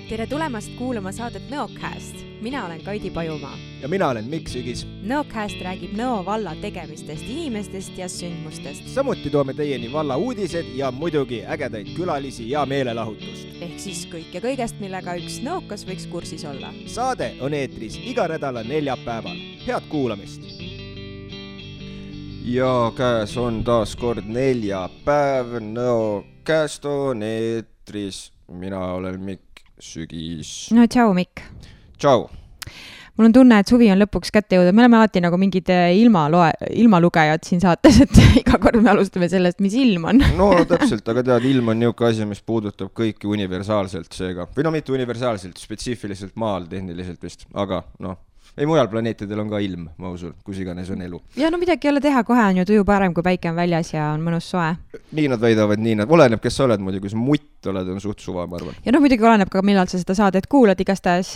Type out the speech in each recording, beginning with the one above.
Tere tulemast kuulama saadet Nõocast. Mina olen Kaidi Pajumaa. Ja mina olen Mikk Sügis. Nõocast räägib Nõo valla tegemistest, inimestest ja sündmustest. Samuti toome teieni valla uudised ja muidugi ägedaid külalisi ja meelelahutust. Ehk siis kõik ja kõigest, millega üks nõokas võiks kursis olla. Saade on eetris iga nädala neljapäeval. Head kuulamist! Ja käes on taas kord neljapäev. Nõocast on eetris. Mina olen Mikk Sügis. No tšau, Mikk. Tšau. Mul on tunne, et suvi on lõpuks kätte jõudnud. Me oleme alati nagu mingid ilmalugejad siin saates, et iga kord me alustame sellest, mis ilm on. No täpselt, aga tead, ilm on niuke asi, mis puudutab kõiki universaalselt seega. Või no mitte universaalselt, spetsiifiliselt maal tehniliselt vist, aga ei mujal planeetidel on ka ilm, ma usun, kus iganes on elu. Ja no midagi ei ole teha, kohe on ju tuju parem, kui päike on väljas ja on mõnus soe. Nii nad väidavad, nii nad. Oleneb, kes sa oled muidu, kui sa mutt oled, on suht suva, ma arvan. Ja muidugi oleneb ka, millal sa seda saadet kuulad. Igastahes,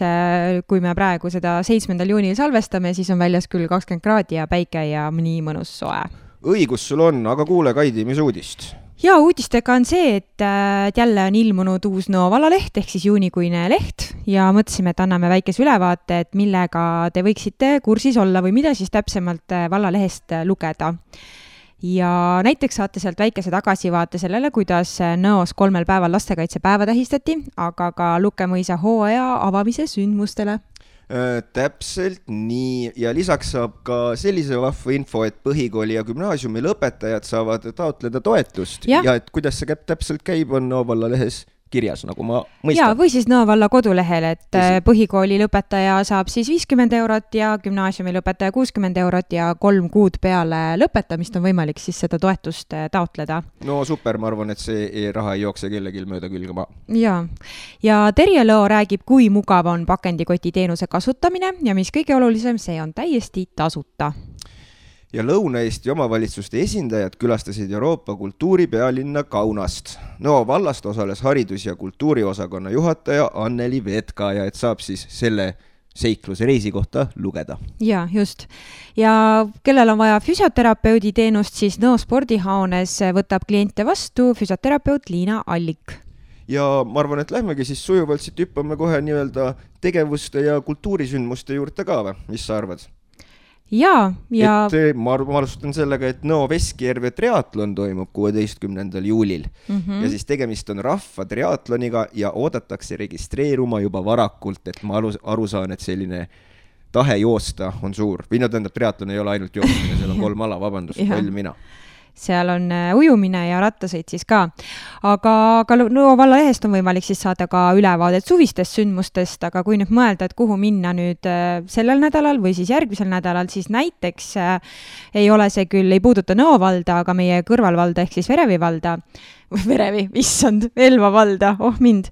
kui me praegu seda 7. juunil salvestame, siis on väljas küll 20 kraadi ja päike ja nii mõnus soe. Õigus sul on, aga kuule, Kaidi, mis uudist? Ja uudistega on see, et jälle on ilmunud uus Nõo vallaleht, ehk siis juunikuine leht ja mõtlesime, et anname väikese ülevaate, et millega te võiksite kursis olla või mida siis täpsemalt vallalehest lugeda. Ja näiteks saate sealt väikese tagasivaate sellele, kuidas Nõos 3 päeval lastekaitsepäeva tähistati, aga ka Lukemõisa hooaja avamise sündmustele. Täpselt nii ja lisaks saab ka sellise vahva info, et põhikooli ja gümnaasiumi lõpetajad saavad taotleda toetust ja et kuidas see täpselt käib, on Nõo vallalehes kirjas, nagu ma mõistan. Ja, või siis Nõo valla kodulehel, et põhikooli lõpetaja saab siis 50 eurot ja gümnaasiumi lõpetaja 60 eurot ja 3 kuud peale lõpetamist on võimalik siis seda toetust taotleda. No super, ma arvan, et see raha ei jookse kellelgi mööda külge maa. Ja Terje Lõo räägib, kui mugav on pakendikoti teenuse kasutamine ja mis kõige olulisem, see on täiesti tasuta. Ja Lõuna-Eesti omavalitsuste esindajad külastasid Euroopa kultuuripealinna Kaunast. Nõo vallast osales haridus- ja kultuuriosakonna juhataja Anneli Vetka ja et saab siis selle seikluse reisi kohta lugeda. Ja, just. Ja kellel on vaja füsioterapeudi teenust, siis Nõo spordihaunes võtab kliente vastu füsioterapeut Liina Allik. Ja ma arvan, et lähmegi siis sujuvalt siit hüppame kohe nii-öelda tegevuste ja kultuurisündmuste juurde ka või? Mis sa arvad? Et ma alustan sellega, et Nõo Veskijärve triatlon toimub 16. juulil ja siis tegemist on rahva triatloniga ja oodatakse registreeruma juba varakult, et ma aru saan, et selline tahe joosta on suur. Või tähendab, triatlon ei ole ainult joostamine, seal on 3 ala, vabandust, palju mina. Seal on ujumine ja rattasõit siis ka. Aga Nõo vallalehest on võimalik siis saada ka ülevaadet suvistest sündmustest, aga kui nüüd mõelda, et kuhu minna nüüd sellel nädalal või siis järgmisel nädalal, siis näiteks ei ole see küll, ei puuduta Nõo valda, aga meie kõrvalvalda ehk siis Elva valda, mind.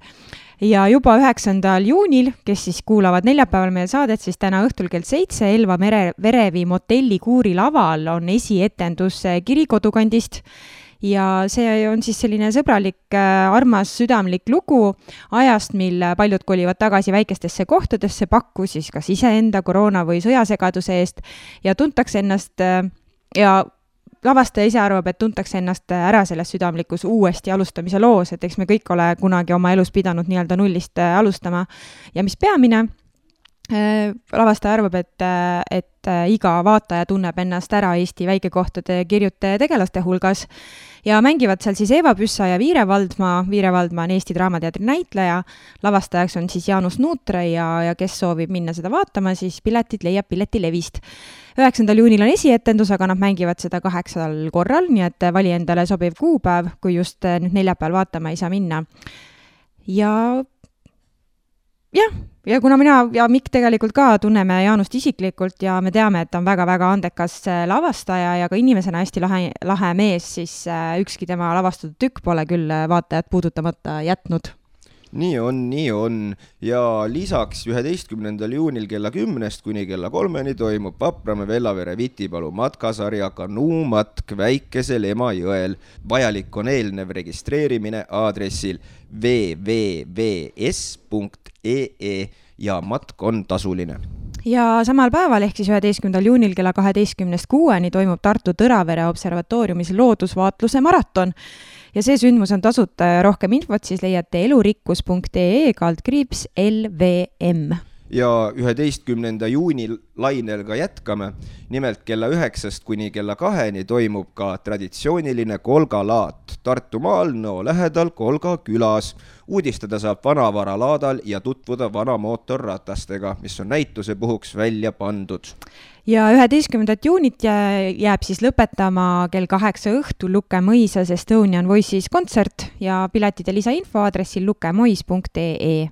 Ja juba 9. juunil, kes siis kuulavad neljapäeval meie saadet, siis täna õhtul kell 7 Elva Verevi motelli Kuuri laval on esietendus Kiri kodukandist. Ja see on siis selline sõbralik, armas, südamlik lugu ajast, mil paljud kolivad tagasi väikestesse kohtadesse, pakku siis kas iseenda koroona või sõjasegaduse eest ja tuntakse ennast lavastaja ise arvab, et tuntakse ennast ära selles südamlikus uuesti alustamise loos, et eks me kõik ole kunagi oma elus pidanud nii-öelda nullist alustama. Ja mis peamine, lavastaja arvab, et iga vaataja tunneb ennast ära Eesti väikekohtade kirjute tegelaste hulgas ja mängivad seal siis Eva Püssa ja Viire Valdma. Viire Valdma on Eesti Draamateatri näitleja. Lavastajaks on siis Jaanus Nuutre ja kes soovib minna seda vaatama, siis piletid leiab Piletilevist. 9. juunil on esietendus, aga nad mängivad seda 8 korral, nii et vali endale sobiv kuupäev, kui just nüüd neljapäeval vaatama ei saa minna. Ja kuna mina ja Mikk tegelikult ka tunneme Jaanust isiklikult ja me teame, et ta on väga-väga andekas lavastaja ja ka inimesena hästi lahe mees, siis ükski tema lavastatud tükk pole küll vaatajat puudutamata jätnud. Nii on. Ja lisaks 11. juunil kella 10 kuni kella 3 toimub Vapramäe Vellavere Vitipalu matkasarja kanuumatk Väikesel Emajõel. Vajalik on eelnev registreerimine aadressil www.s.ee ja matk on tasuline. Ja samal päeval ehk siis 11. juunil kella 12-6 toimub Tartu Tõravere observatooriumis loodusvaatluse maraton. ja see sündmus on tasuta ja rohkem infot siis leiate elurikkus.ee/LVM. Ja 11. juuni lainel ka jätkame. Nimelt kella 9 kuni kella 2 toimub ka traditsiooniline kolgalaat Tartumaal Nõo lähedal Kolga külas. Uudistada saab vanavaralaadal ja tutvuda vana mootorratastega, mis on näituse puhuks välja pandud. Ja 11. juunit jääb siis lõpetama kell 8 õhtul Luke Mõisas Estonian Voices kontsert ja piletide lisainfo aadressil lukemois.ee.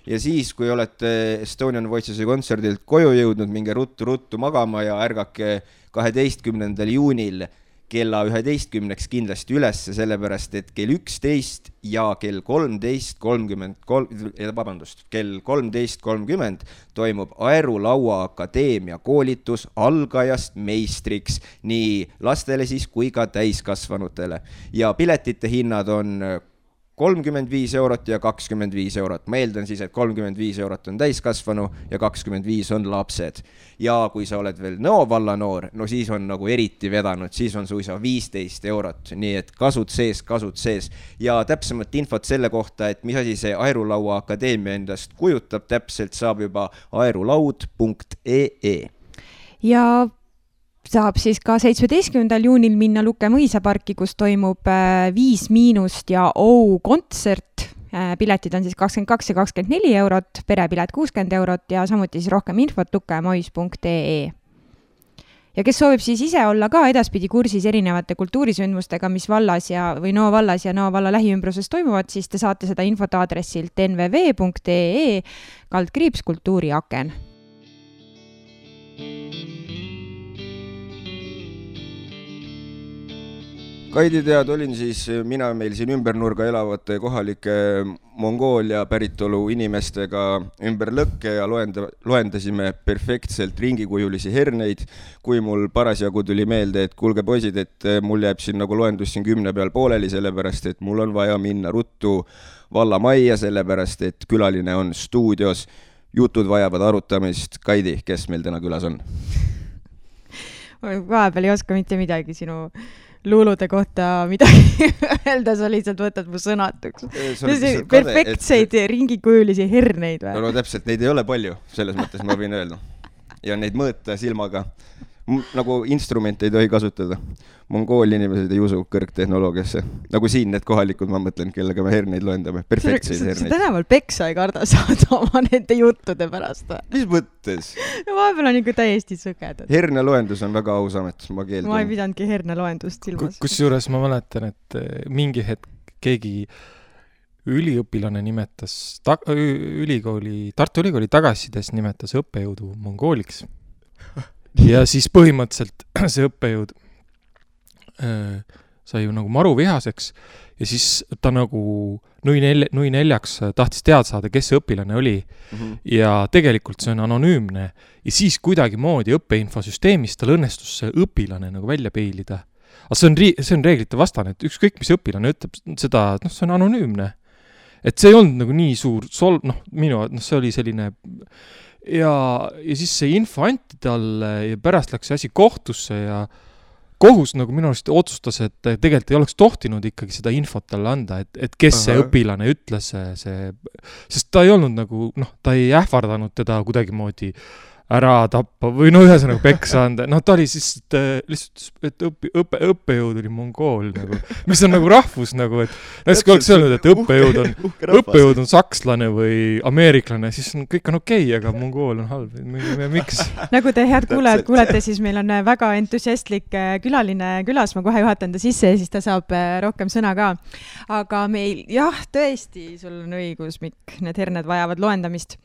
Ja siis, kui olete Estonian Voicesi kontserdilt koju jõudnud, minge ruttu magama ja ärgake 12. juunil kella 11 kindlasti üles, sellepärast et kell 11 ja kell 13.30 toimub Aerulaua Akadeemia koolitus algajast meistriks nii lastele siis kui ka täiskasvanutele. Ja piletite hinnad on 35 eurot ja 25 eurot. Ma eeldan siis, et 35 eurot on täiskasvanu ja 25 on lapsed. Ja kui sa oled veel Nõo valla noor, no siis on nagu eriti vedanud, siis on suisa 15 eurot. Nii et kasud sees. Ja täpsemat infot selle kohta, et mis asi see Aerulaua Akadeemia endast kujutab, täpselt saab juba aerulaud.ee. Ja saab siis ka 17. juunil minna Luke Mõisaparki, kus toimub 5- ja kontsert. Piletid on siis 22 ja 24 eurot, perepilet 60 eurot ja samuti siis rohkem infot lukemois.ee. Ja kes soovib siis ise olla ka edaspidi kursis erinevate kultuurisündmustega, mis vallas või Nõo vallas ja Nõo valla lähiümbruses toimuvad, siis te saate seda infot aadressilt nvv.ee/kultuuriaken. Kaidi tead, olin siis mina meil siin ümbernurga elavate kohalike Mongoolia päritolu inimestega ümber lõkke ja loendasime perfektselt ringikujulisi herneid, kui mul parasjagu tuli meelde, et kuulge poisid, et mul jääb siin nagu loendus siin 10 peal pooleli, sellepärast et mul on vaja minna ruttu valla majja, sellepärast et külaline on stuudios. Jutud vajavad arutamist. Kaidi, kes meil täna külas on? Vahepeal ei oska mitte midagi sinu luulude kohta midagi öelda, sa lihtsalt võtad mu sõnatuks. Perfektseid ringikujulisi herneid või? No täpselt, neid ei ole palju, selles mõttes ma võin öelda. Ja neid mõõta silmaga. Nagu instrumente ei tohi kasutada. Mongooli inimesed ei usu kõrgtehnoloogiasse. Nagu siin need kohalikud, ma mõtlen, kellega me herneid loendame. Perfektseid herneid. Sa tänaval peksa ei karda saada oma nende juttude pärast. Mis mõttes? No vahepeal on ikka täiesti sõgedad. Herne loendus on väga aus amet, ma keeldun. Ma ei pidanudki herne loendust silmas. Kusjuures ma mäletan, et mingi hetk keegi üliõpilane nimetas, Tartu Ülikooli tagasisides nimetas õppejõudu mongooliks. Ja siis põhimõtteliselt see õppejõud sai ju nagu maru vihaseks ja siis ta nagu nui neljaks tahtis teada saada, kes see õpilane oli. Ja tegelikult see on anonüümne ja siis kuidagi moodi õppeinfosüsteemis tal õnnestus see õpilane nagu välja peilida. Aga see on reeglite vastane, et ükskõik mis õpilane ütleb seda, et see on anonüümne. Et see ei olnud nagu nii suur see oli selline ja siis see info anti talle ja pärast läks see asi kohtusse ja kohus nagu minu arust otsustas, et tegelikult ei oleks tohtinud ikkagi seda infot talle anda, et kes see õpilane ütles, sest ta ei olnud nagu, ta ei ähvardanud teda kuidagi moodi ära tappa või ühesõnaga peksa anda. Ta oli siis lihtsalt, et õppejõud oli mongool, nagu, mis on nagu rahvus, nagu, et näiteks oleks öelnud, et õppejõud on sakslane või ameeriklane, siis kõik on okei, aga mongool on halb. Miks? Nagu te head kuulete, siis meil on väga entusiastlik külaline külas, ma kohe juhatan ta sisse ja siis ta saab rohkem sõna ka. Aga meil, tõesti, sul on õigus, Mikk, need herned vajavad loendamist.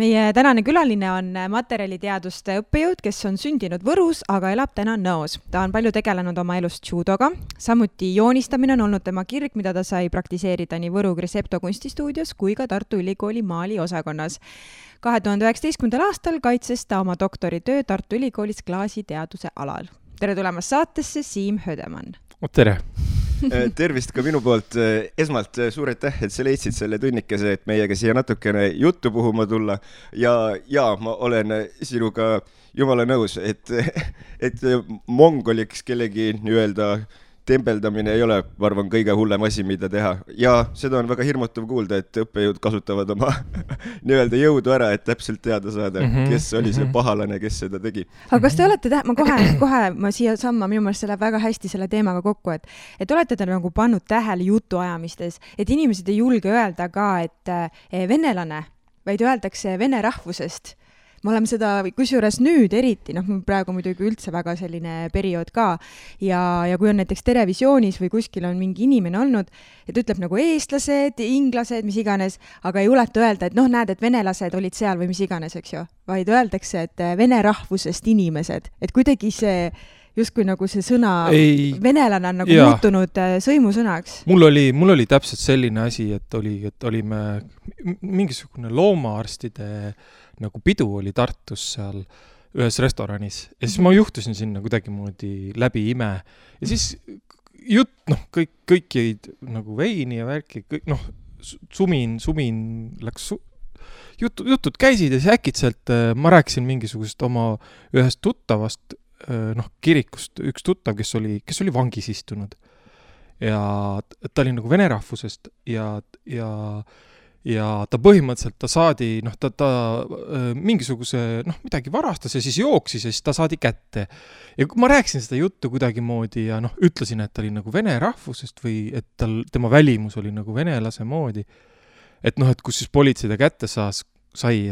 Meie tänane külaline on materjaliteaduste õppejõud, kes on sündinud Võrus, aga elab täna Nõos. Ta on palju tegelenud oma elust judoga. Samuti joonistamine on olnud tema kirg, mida ta sai praktiseerida nii Võru Grisepto kunstistuudios kui ka Tartu Ülikooli maali osakonnas. 2019. aastal kaitses ta oma doktoritöö Tartu Ülikoolis klaasiteaduse alal. Tere tulemast saatesse, Siim Hödemann. Tere! Tervist ka minu poolt. Esmalt suur aitäh, et sa leidsid selle tunnikese, et meiega siia natukene juttu puhuma tulla. Ja ma olen sinuga jumala nõus, et mongoliks kellegi nii-öelda tembeldamine ei ole, ma arvan, kõige hullem asi, mida teha. Ja seda on väga hirmutav kuulda, et õppejõud kasutavad oma nii-öelda jõudu ära, et täpselt teada saada, kes oli see pahalane, kes seda tegi. Aga kas te olete, ma siia samma, minu meelest see läheb väga hästi selle teemaga kokku, et olete te nagu pannud tähele jutuajamistes, et inimesed ei julge öelda ka, et venelane, vaid öeldakse vene rahvusest. Me oleme seda kusjuures nüüd eriti, praegu muidugi üldse väga selline periood ka ja kui on näiteks televisioonis või kuskil on mingi inimene olnud, et ütleb nagu eestlased, inglased, mis iganes, aga ei juleta öelda, et näed, et venelased olid seal või mis iganes, eks ju, vaid öeldakse, et vene rahvusest inimesed, et kuidagi see justkui nagu see sõna venelane on nagu muutunud sõimusõnaks. Mul oli täpselt selline asi, et olime mingisugune loomaarstide nagu pidu oli Tartus seal ühes restoranis ja siis ma juhtusin sinna kuidagi moodi läbi ime ja siis kõik jäid nagu veini ja värki, kõik sumin läks jutud käisid ja siis äkitselt ma rääkisin mingisugust oma ühest tuttavast kirikust, üks tuttav, kes oli vangis istunud ja ta oli nagu vene rahvusest ja ta põhimõtteliselt ta saadi, ta mingisuguse, midagi varastas ja siis jooksis ja siis ta saadi kätte. Ja kui ma rääkisin seda juttu kuidagi moodi ja ütlesin, et ta oli nagu vene rahvusest või et tema välimus oli nagu venelase moodi, et kus siis politsei ta kätte sai,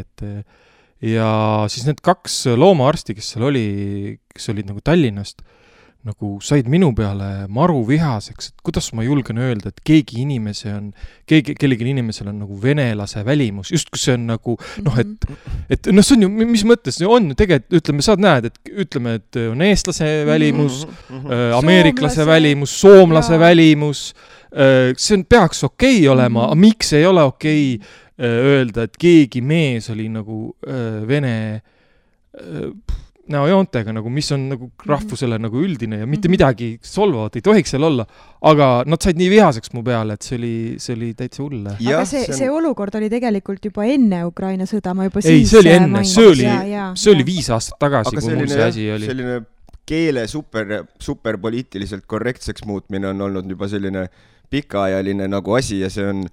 ja siis need 2 loomaarsti, kes seal olid nagu Tallinnast, nagu said minu peale maru vihaseks, et kuidas ma julgen öelda, et kellegi inimesel on nagu venelase välimus, just kui see on nagu, et see on ju, mis mõttes see on, tegelikult ütleme, sa näed, et on eestlase välimus, ameeriklase välimus, soomlase välimus, see peaks okei olema, aga miks ei ole okei öelda, et keegi mees oli nagu vene näojoontega, nagu, mis on nagu rahvusele nagu üldine ja mitte midagi solvavat ei tohiks seal olla, aga nad said nii vihaseks mu peale, et see oli täitsa hulle. Aga see olukord oli tegelikult juba enne Ukraina sõda, ma juba siis see oli enne, see oli 5 aastat tagasi, kui mul see asi oli. Selline keele super poliitiliselt korrektseks muutmine on olnud juba selline pikaajaline nagu asi ja see on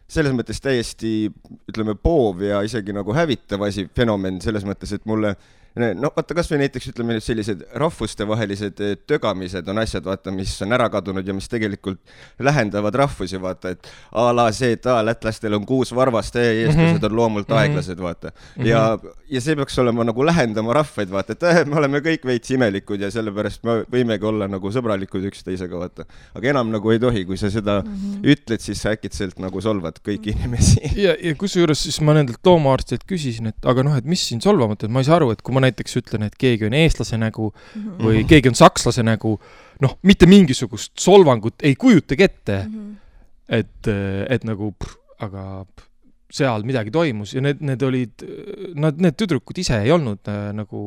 selles mõttes täiesti, ütleme, poov ja isegi nagu hävitav asi, fenomen selles mõttes, et mulle vaata, kas või näiteks ütleme sellised rahvustevahelised tögamised on asjad, vaata, mis on ära kadunud ja mis tegelikult lähendavad rahvusi, vaata, et a la see, et lätlastel on 6 varvast ja eestlased on loomult aeglased, vaata. Ja see peaks olema nagu lähendama rahvaid, vaata, et me oleme kõik veits imelikud ja sellepärast me võimegi olla nagu sõbralikud üksteisega, vaata. Aga enam nagu ei tohi, kui sa seda ütled, siis sa äkitselt nagu solvad kõiki inimesi. Ja kusjuures siis ma nendelt loomaarstid küsisin, et aga et mis siin solvamata, et ma ei saa aru, et kui ma näiteks ütlen, et keegi on eestlase nägu või keegi on sakslase nägu, mitte mingisugust solvangut ei kujutagi ette, et nagu, aga seal midagi toimus ja need olid, need tüdrukud ise ei olnud nagu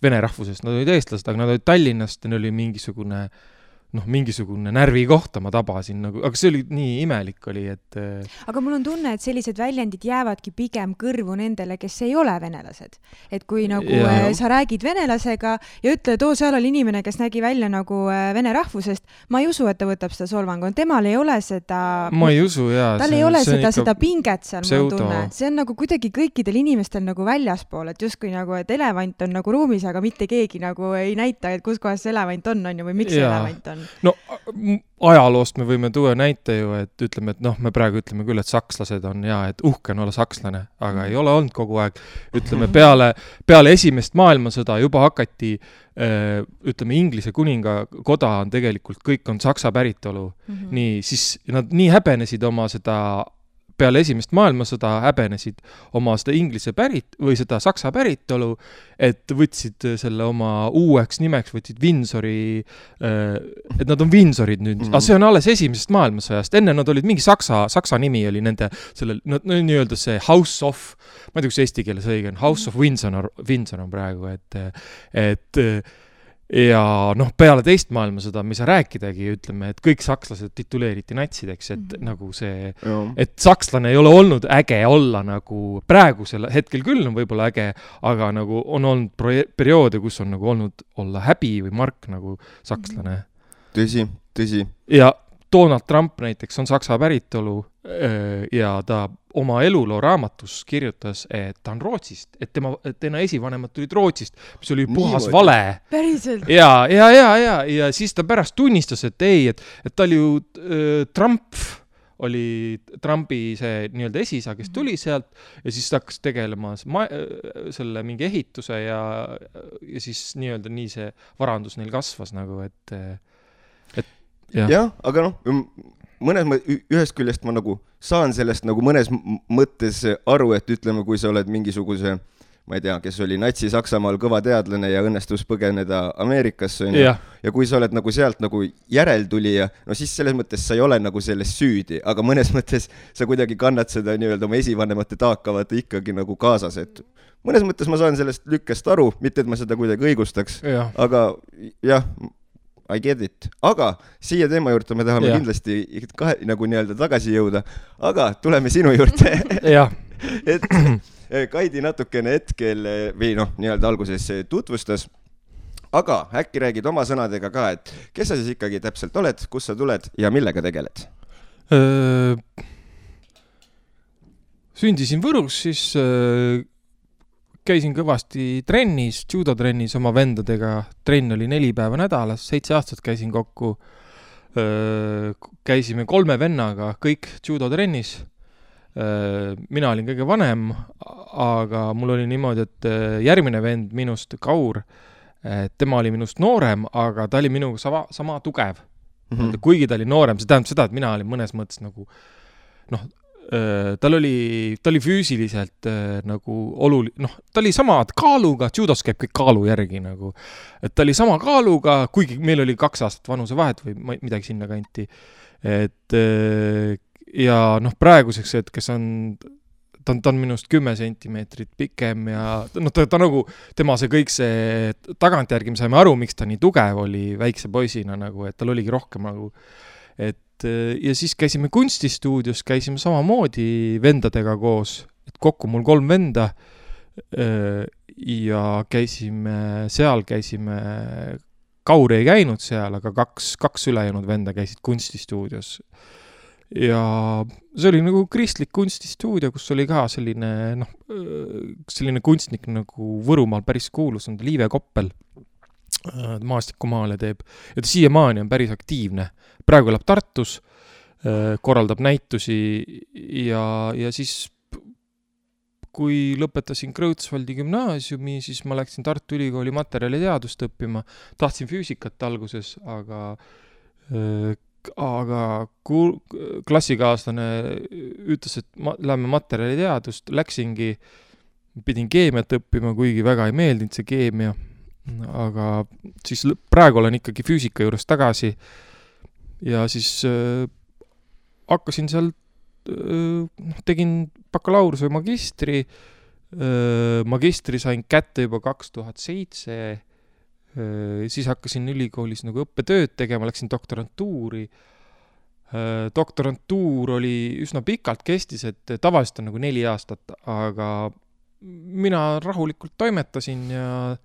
vene rahvusest, nad olid eestlased, aga nad olid Tallinnast ja neil oli mingisugune närvi kohta ma tabasin, nagu, aga see oli nii imelik oli, et... Aga mul on tunne, et sellised väljendid jäävadki pigem kõrvu nendele, kes ei ole venelased. Et kui nagu sa räägid venelasega ja ütled, seal oli inimene, kes nägi välja nagu vene rahvusest, ma ei usu, et ta võtab seda solvangu. Temal ei ole seda... Ma ei usu, jaa. Tal ei ole seda pinget seal, ma tunne. See on nagu kuidagi kõikidel inimestel nagu väljaspool, et justkui nagu, et elevant on nagu ruumis, aga mitte keegi nagu ei näita, et kus kohas see elevant on ju, või miks see elevant on. No ajaloost me võime tuua näite ju, et ütleme, et me praegu ütleme küll, et sakslased on et uhke on olla sakslane, aga ei ole olnud kogu aeg. Ütleme, peale esimest maailmasõda juba hakati, ütleme, Inglise kuningakoda on tegelikult, kõik on saksa päritolu. Nii, siis nad nii häbenesid oma seda peale esimest maailmasõda häbenesid oma seda inglise või seda saksa päritolu, et võtsid selle oma uueks nimeks, võtsid Windsori, et nad on Windsorid nüüd. Aga see on alles esimesest maailmasõjast. Enne nad olid mingi saksa nimi oli nende, nii-öelda see House of, ma ei tea, kus eesti keeles õige on, House of Windsor on praegu, et ja peale teist maailmasõda me ei saa rääkidagi, ütleme, et kõik sakslased tituleeriti natsideks, et nagu see, et sakslane ei ole olnud äge olla nagu praegusel hetkel küll on võib-olla äge, aga nagu on olnud perioode, kus on nagu olnud olla häbi või mark nagu sakslane. Tõsi, tõsi. Ja Donald Trump näiteks on saksa päritolu ja ta oma eluloo raamatus kirjutas, et ta on Rootsist, et tema esivanemad tulid Rootsist, mis oli puhas vale. Päriselt? Ja siis ta pärast tunnistas, et ei, et ta oli ju Trump oli Trumpi see nii-öelda esisa, kes tuli sealt ja siis ta hakkas tegelema selle mingi ehituse ja siis nii-öelda nii see varandus neil kasvas nagu, et jah, aga ühest küljest ma nagu saan sellest nagu mõnes mõttes aru, et ütleme, kui sa oled mingisuguse, ma ei tea, kes oli Natsi-Saksamaal kõva teadlane ja õnnestus põgeneda Ameerikasse, ja kui sa oled nagu sealt nagu järeltulija, no siis selles mõttes sa ei ole nagu selles süüdi, aga mõnes mõttes sa kuidagi kannad seda nii-öelda oma esivanemate taakavat ikkagi nagu kaasas, et mõnes mõttes ma saan sellest lükkest aru, mitte et ma seda kuidagi õigustaks, aga jah, I get it. Aga siia teema juurde me tahame kindlasti nagu nii-öelda tagasi jõuda, aga tuleme sinu juurde. Et Kaidi natukene hetkel või nii-öelda alguses tutvustas, aga äkki räägid oma sõnadega ka, et kes sa siis ikkagi täpselt oled, kus sa tuled ja millega tegeled? Sündisin Võrus, siis käisin kõvasti trennis, judotrennis oma vendadega. Trenn oli 4 päeva nädalas, 7 aastat käisin kokku. Käisime 3 vennaga, kõik judotrennis. Mina olin kõige vanem, aga mul oli niimoodi, et järgmine vend minust, Kaur, tema oli minust noorem, aga ta oli minuga sama tugev. Kuigi ta oli noorem, see tähendab seda, et mina olin mõnes mõttes nagu ta oli füüsiliselt nagu ta oli sama kaaluga, judos käib kõik kaalu järgi nagu, et ta oli sama kaaluga, kuigi meil oli 2 aastat vanuse vahet või midagi sinna kanti, et ja praeguseks hetkes ta on minust 10 sentimeetrit pikem ja ta nagu, tema see kõik see tagantjärgi me saime aru, miks ta nii tugev oli väikse poisina nagu, et tal oligi rohkem nagu, ja siis käisime kunstistuudios, käisime samamoodi vendadega koos, et kokku mul 3 venda ja käisime, Kaur ei käinud seal, aga 2 ülejäänud venda käisid kunstistuudios. Ja see oli nagu kristlik kunstistuudio, kus oli ka selline kunstnik nagu Võrumaal päris kuulus, on Liive Koppel. Maastikumaale teeb ja ta siiamaani on päris aktiivne. Praegu elab Tartus, korraldab näitusi ja siis kui lõpetasin Krõutsvaldi gümnaasiumi, siis ma läksin Tartu Ülikooli materjaliteadust õppima. Tahtsin füüsikat alguses, aga klassikaaslane ütles, et lähme materjaliteadust, läksingi, pidin keemiat õppima, kuigi väga ei meeldinud see keemia. Aga siis praegu olen ikkagi füüsika juures tagasi ja siis hakkasin seal, tegin bakalaureuse magistri sain kätte juba 2007, siis hakkasin ülikoolis nagu õppetööd tegema, läksin doktorantuuri. Doktorantuur oli üsna pikalt kestis, et tavaliselt on nagu 4 aastat, aga mina rahulikult toimetasin ja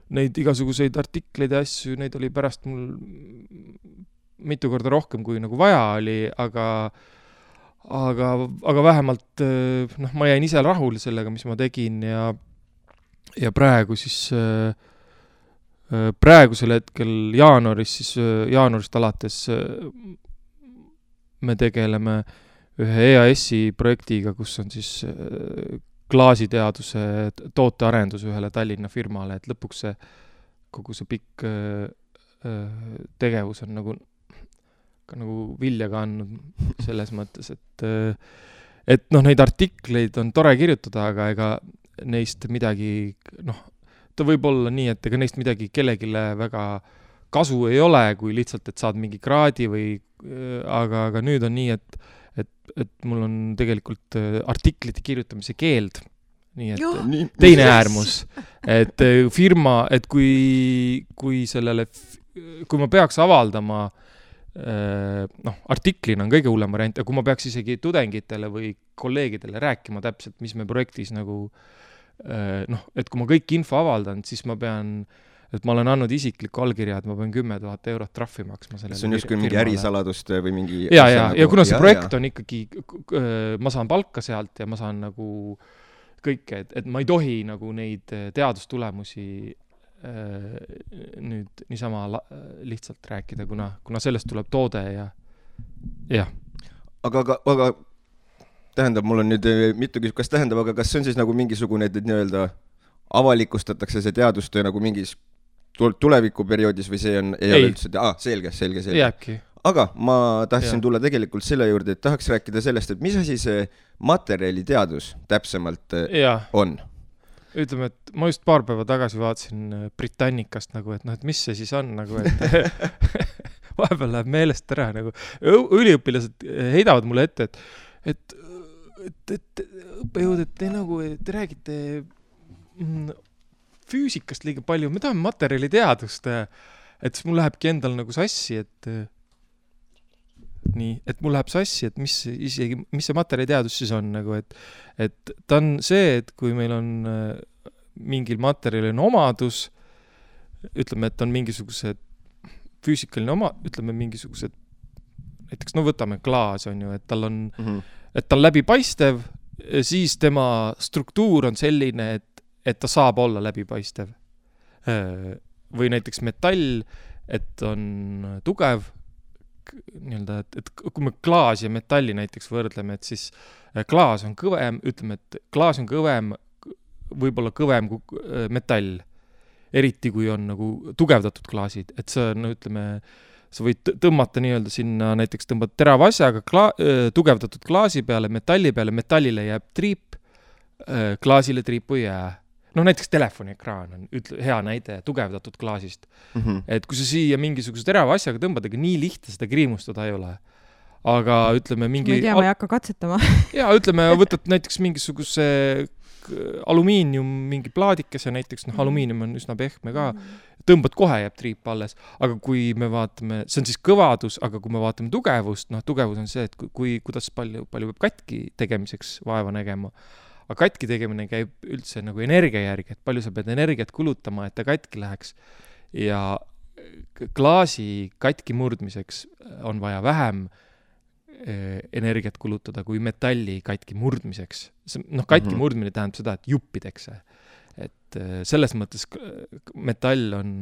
neid igasuguseid artikleid ja asju, neid oli pärast mul mitu korda rohkem, kui nagu vaja oli, aga vähemalt ma jäin ise rahul sellega, mis ma tegin ja praegu siis praegusel hetkel jaanuarist alates me tegeleme ühe EAS-i projektiga, kus on siis klaasiteaduse tootearendus ühele Tallinna firmale, et lõpuks kogu see pikk tegevus on nagu vilja kandnud selles mõttes, et neid artikleid on tore kirjutada, aga ega neist midagi, ta võib olla nii, et ega neist midagi kellegile väga kasu ei ole, kui lihtsalt, et saad mingi kraadi või, aga nüüd on nii, et mul on tegelikult artiklite kirjutamise keeld, nii et teine äärmus, et firma, et kui ma peaks avaldama, artiklina on kõige hullem variant, ja kui ma peaks isegi tudengitele või kolleegidele rääkima täpselt, mis me projektis nagu, et kui ma kõik info avaldan, siis ma pean et ma olen andnud isikliku allkirja, et ma pean 10 000 eurot trahvi maksma sellele. See on justkui mingi ärisaladust või mingi... Ja kuna see projekt on ikkagi, ma saan palka sealt ja ma saan nagu kõike, et ma ei tohi nagu neid teadustulemusi nüüd niisama lihtsalt rääkida, kuna sellest tuleb toode ja jah. Aga tähendab, mul on nüüd mitu küsimust, kas tähendab, aga kas see on siis nagu mingisugune, et nii-öelda avalikustatakse see teadustöö nagu mingis tulevikuperioodis või see on, ei ole üldse, selge. Jääbki. Aga ma tahtsin tulla tegelikult selle juurde, et tahaks rääkida sellest, et mis asi see materjaliteadus täpsemalt on? Ütleme, et ma just paar päeva tagasi vaatasin Britannicast nagu, et noh, et mis see siis on nagu, et vahepeal läheb meelest ära nagu. Üliõpilased heidavad mulle ette, et õppejõud, et te räägite füüsikast liiga palju, me tahame materjaliteadust, et siis mul lähebki endal nagu sassi, et mul läheb sassi, et mis see materjaliteadus siis on nagu, et ta on see, et kui meil on mingil materjalil omadus, ütleme, et on mingisugused füüsikaline ütleme mingisugused, näiteks võtame klaas on ju, et tal on, et ta on läbipaistev, siis tema struktuur on selline, et ta saab olla läbipaistev. Või näiteks metall, et on tugev, nii-öelda, et kui me klaas ja metalli näiteks võrdleme, et siis klaas on kõvem, ütleme, et klaas on kõvem, võib-olla kõvem kui metall. Eriti kui on nagu tugevdatud klaasid, et see on, ütleme, sa võid tõmmata nii-öelda sinna, näiteks tõmbad terava asjaga tugevdatud klaasi peale, metallile jääb triip, klaasile triipu ei jää. Näiteks telefoniekraan on hea näide tugevdatud klaasist. Et kui sa siia mingisuguse terava asjaga tõmbad, aga nii lihtne seda kriimustada ei ole. Aga ütleme mingi... Ma ei tea, ma ei hakka katsetama. Ja ütleme, võtad näiteks mingisuguse alumiinium, mingi plaadikese näiteks, alumiinium on üsna pehme ka, tõmbad kohe, jääb triip alles. Aga kui me vaatame, see on siis kõvadus, aga kui me vaatame tugevust, tugevus on see, et kuidas palju peab katki tegemiseks vaeva nägema. Aga katki tegemine käib üldse nagu energia järgi, et palju sa pead energiat kulutama, et ta katki läheks. Ja klaasi katki murdmiseks on vaja vähem energiat kulutada kui metalli katki murdmiseks. Katki murdmine tähendab seda, et juppidekse. Et selles mõttes metall on,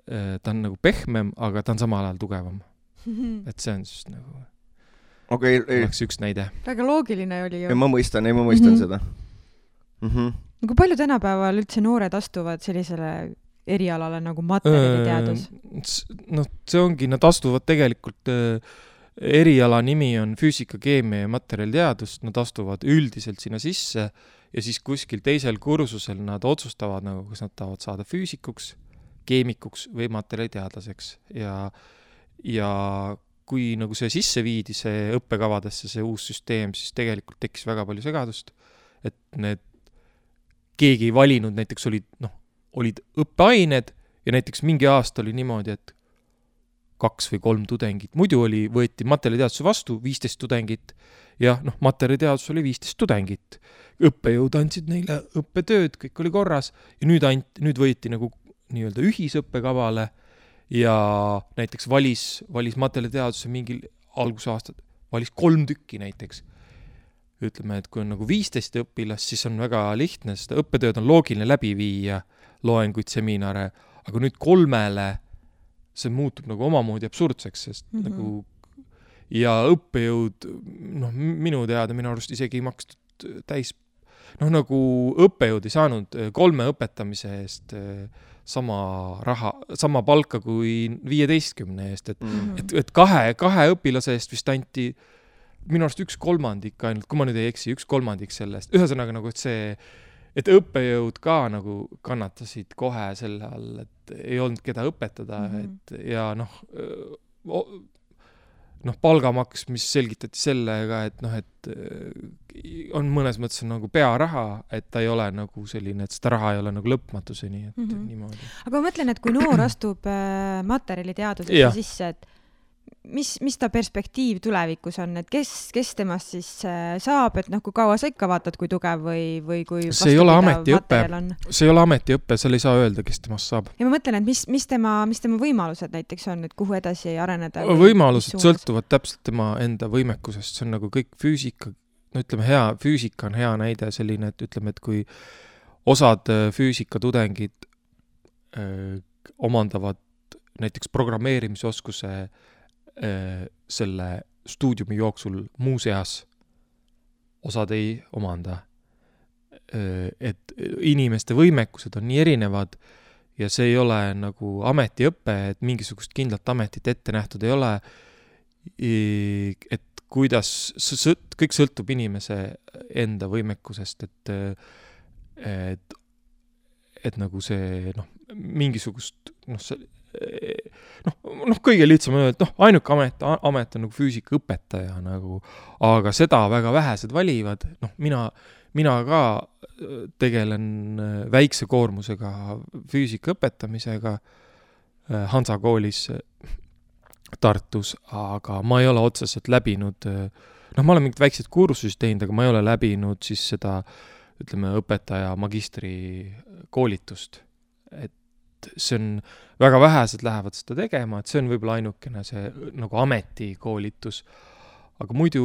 ta on nagu pehmem, aga ta on samal ajal tugevam. Et see on siis nagu... oleks üks näide. Väga loogiline oli ju. Ma mõistan seda. Kui palju tänapäeval üldse noored astuvad sellisele erialale nagu materjaliteadus? See ongi, nad astuvad tegelikult, eriala nimi on füüsika, keemia ja materjaliteadus, nad astuvad üldiselt sinna sisse ja siis kuskil teisel kursusel nad otsustavad, nagu, kas nad tahavad saada füüsikuks, keemikuks või materjaliteadlaseks ja kui nagu see sisse viidi, see õppekavadesse, see uus süsteem, siis tegelikult tekkis väga palju segadust, et keegi ei valinud, näiteks olid õppeained ja näiteks mingi aasta oli niimoodi, et 2 või 3 tudengit. Muidu võeti materjaliteaduse vastu 15 tudengit ja materjaliteadus oli 15 tudengit. Õppejõud andsid neile õppetööd, kõik oli korras ja nüüd võeti nagu nii-öelda ühisõppekavale ja näiteks valis materjaliteaduse mingil algusaastad, valis 3 tükki näiteks. Ütleme, et kui on nagu 15 õpilast, siis on väga lihtne, sest õppetööd on loogiline läbi viia, loenguid, seminare, aga nüüd 3-le see muutub nagu omamoodi absurdseks, sest nagu ja õppejõud, minu arust isegi ei makstud täis, nagu õppejõud ei saanud 3 õpetamise eest sama palka kui 15 eest, et 2 õpilase eest vist anti minu arust 1/3 ainult, kui ma nüüd ei eksi, 1/3 sellest. Ühesõnaga nagu, et see, et õppejõud ka nagu kannatasid kohe selle all, et ei olnud keda õpetada, et ja palgamaks, mis selgitati sellega, et on mõnes mõttes nagu pearaha, et ta ei ole nagu selline, et seda raha ei ole nagu lõpmatuseni, et niimoodi. Aga ma mõtlen, et kui noor astub materjaliteadusesse sisse, et mis ta perspektiiv tulevikus on, et kes temast siis saab, et kui kaua sa ikka vaatad, kui tugev või kui see ei ole ametiõpe, seal ei saa öelda, kes temast saab. Ja ma mõtlen, et mis tema võimalused näiteks on, et kuhu edasi areneda? Võimalused sõltuvad täpselt tema enda võimekusest, see on nagu kõik füüsika, füüsika on hea näide selline, et ütleme, et kui osad füüsikatudengid omandavad näiteks programmeerimisoskuse selle stuudiumi jooksul muuseas, osad ei omanda. Et inimeste võimekused on nii erinevad ja see ei ole nagu ametiõpe, et mingisugust kindlat ametit ette nähtud ei ole, et kuidas kõik sõltub inimese enda võimekusest, et nagu see mingisugust kõige lihtsam on öelda, et ainuke amet on nagu füüsikaõpetaja aga seda väga vähesed valivad, mina ka tegelen väikse koormusega füüsika õpetamisega Hansa koolis Tartus, aga ma ei ole otseselt läbinud, ma olen mingid väiksed kursusid teinud, aga ma ei ole läbinud siis seda, ütleme, õpetaja magistri koolitust, et see on, väga vähesed lähevad seda tegema, et see on võib-olla ainukene see nagu ametikoolitus, aga muidu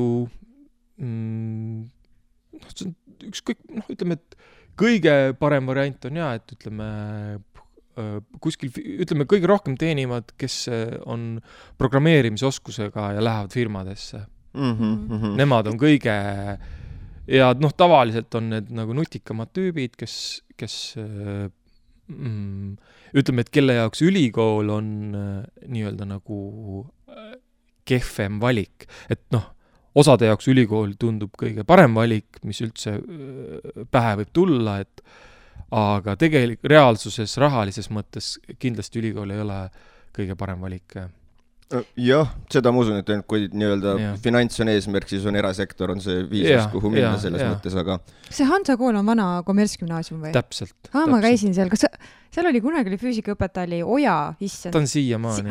see on ükskõik, ütleme, et kõige parem variant on et ütleme, kuskil, ütleme, kõige rohkem teenivad, kes on programmeerimisoskusega ja lähevad firmadesse. Nemad on kõige, ja tavaliselt on need nagu nutikamad tüübid, kes ütleme, et kelle jaoks ülikool on nii-öelda nagu kehvem valik, et osade jaoks ülikool tundub kõige parem valik, mis üldse pähe võib tulla, aga tegelikult reaalsuses, rahalises mõttes kindlasti ülikool ei ole kõige parem valik. Jah, seda ma usun, et kui nii-öelda finants on eesmärk, siis on erasektor, on see viisus, kuhu minna selles mõttes, aga... See Hansa kool on vana kommertsgümnaasium või? Täpselt. Ma käisin seal, kas seal oli kunagi füüsikaõpetaja oli Oja, issand? Ta on siiamaani.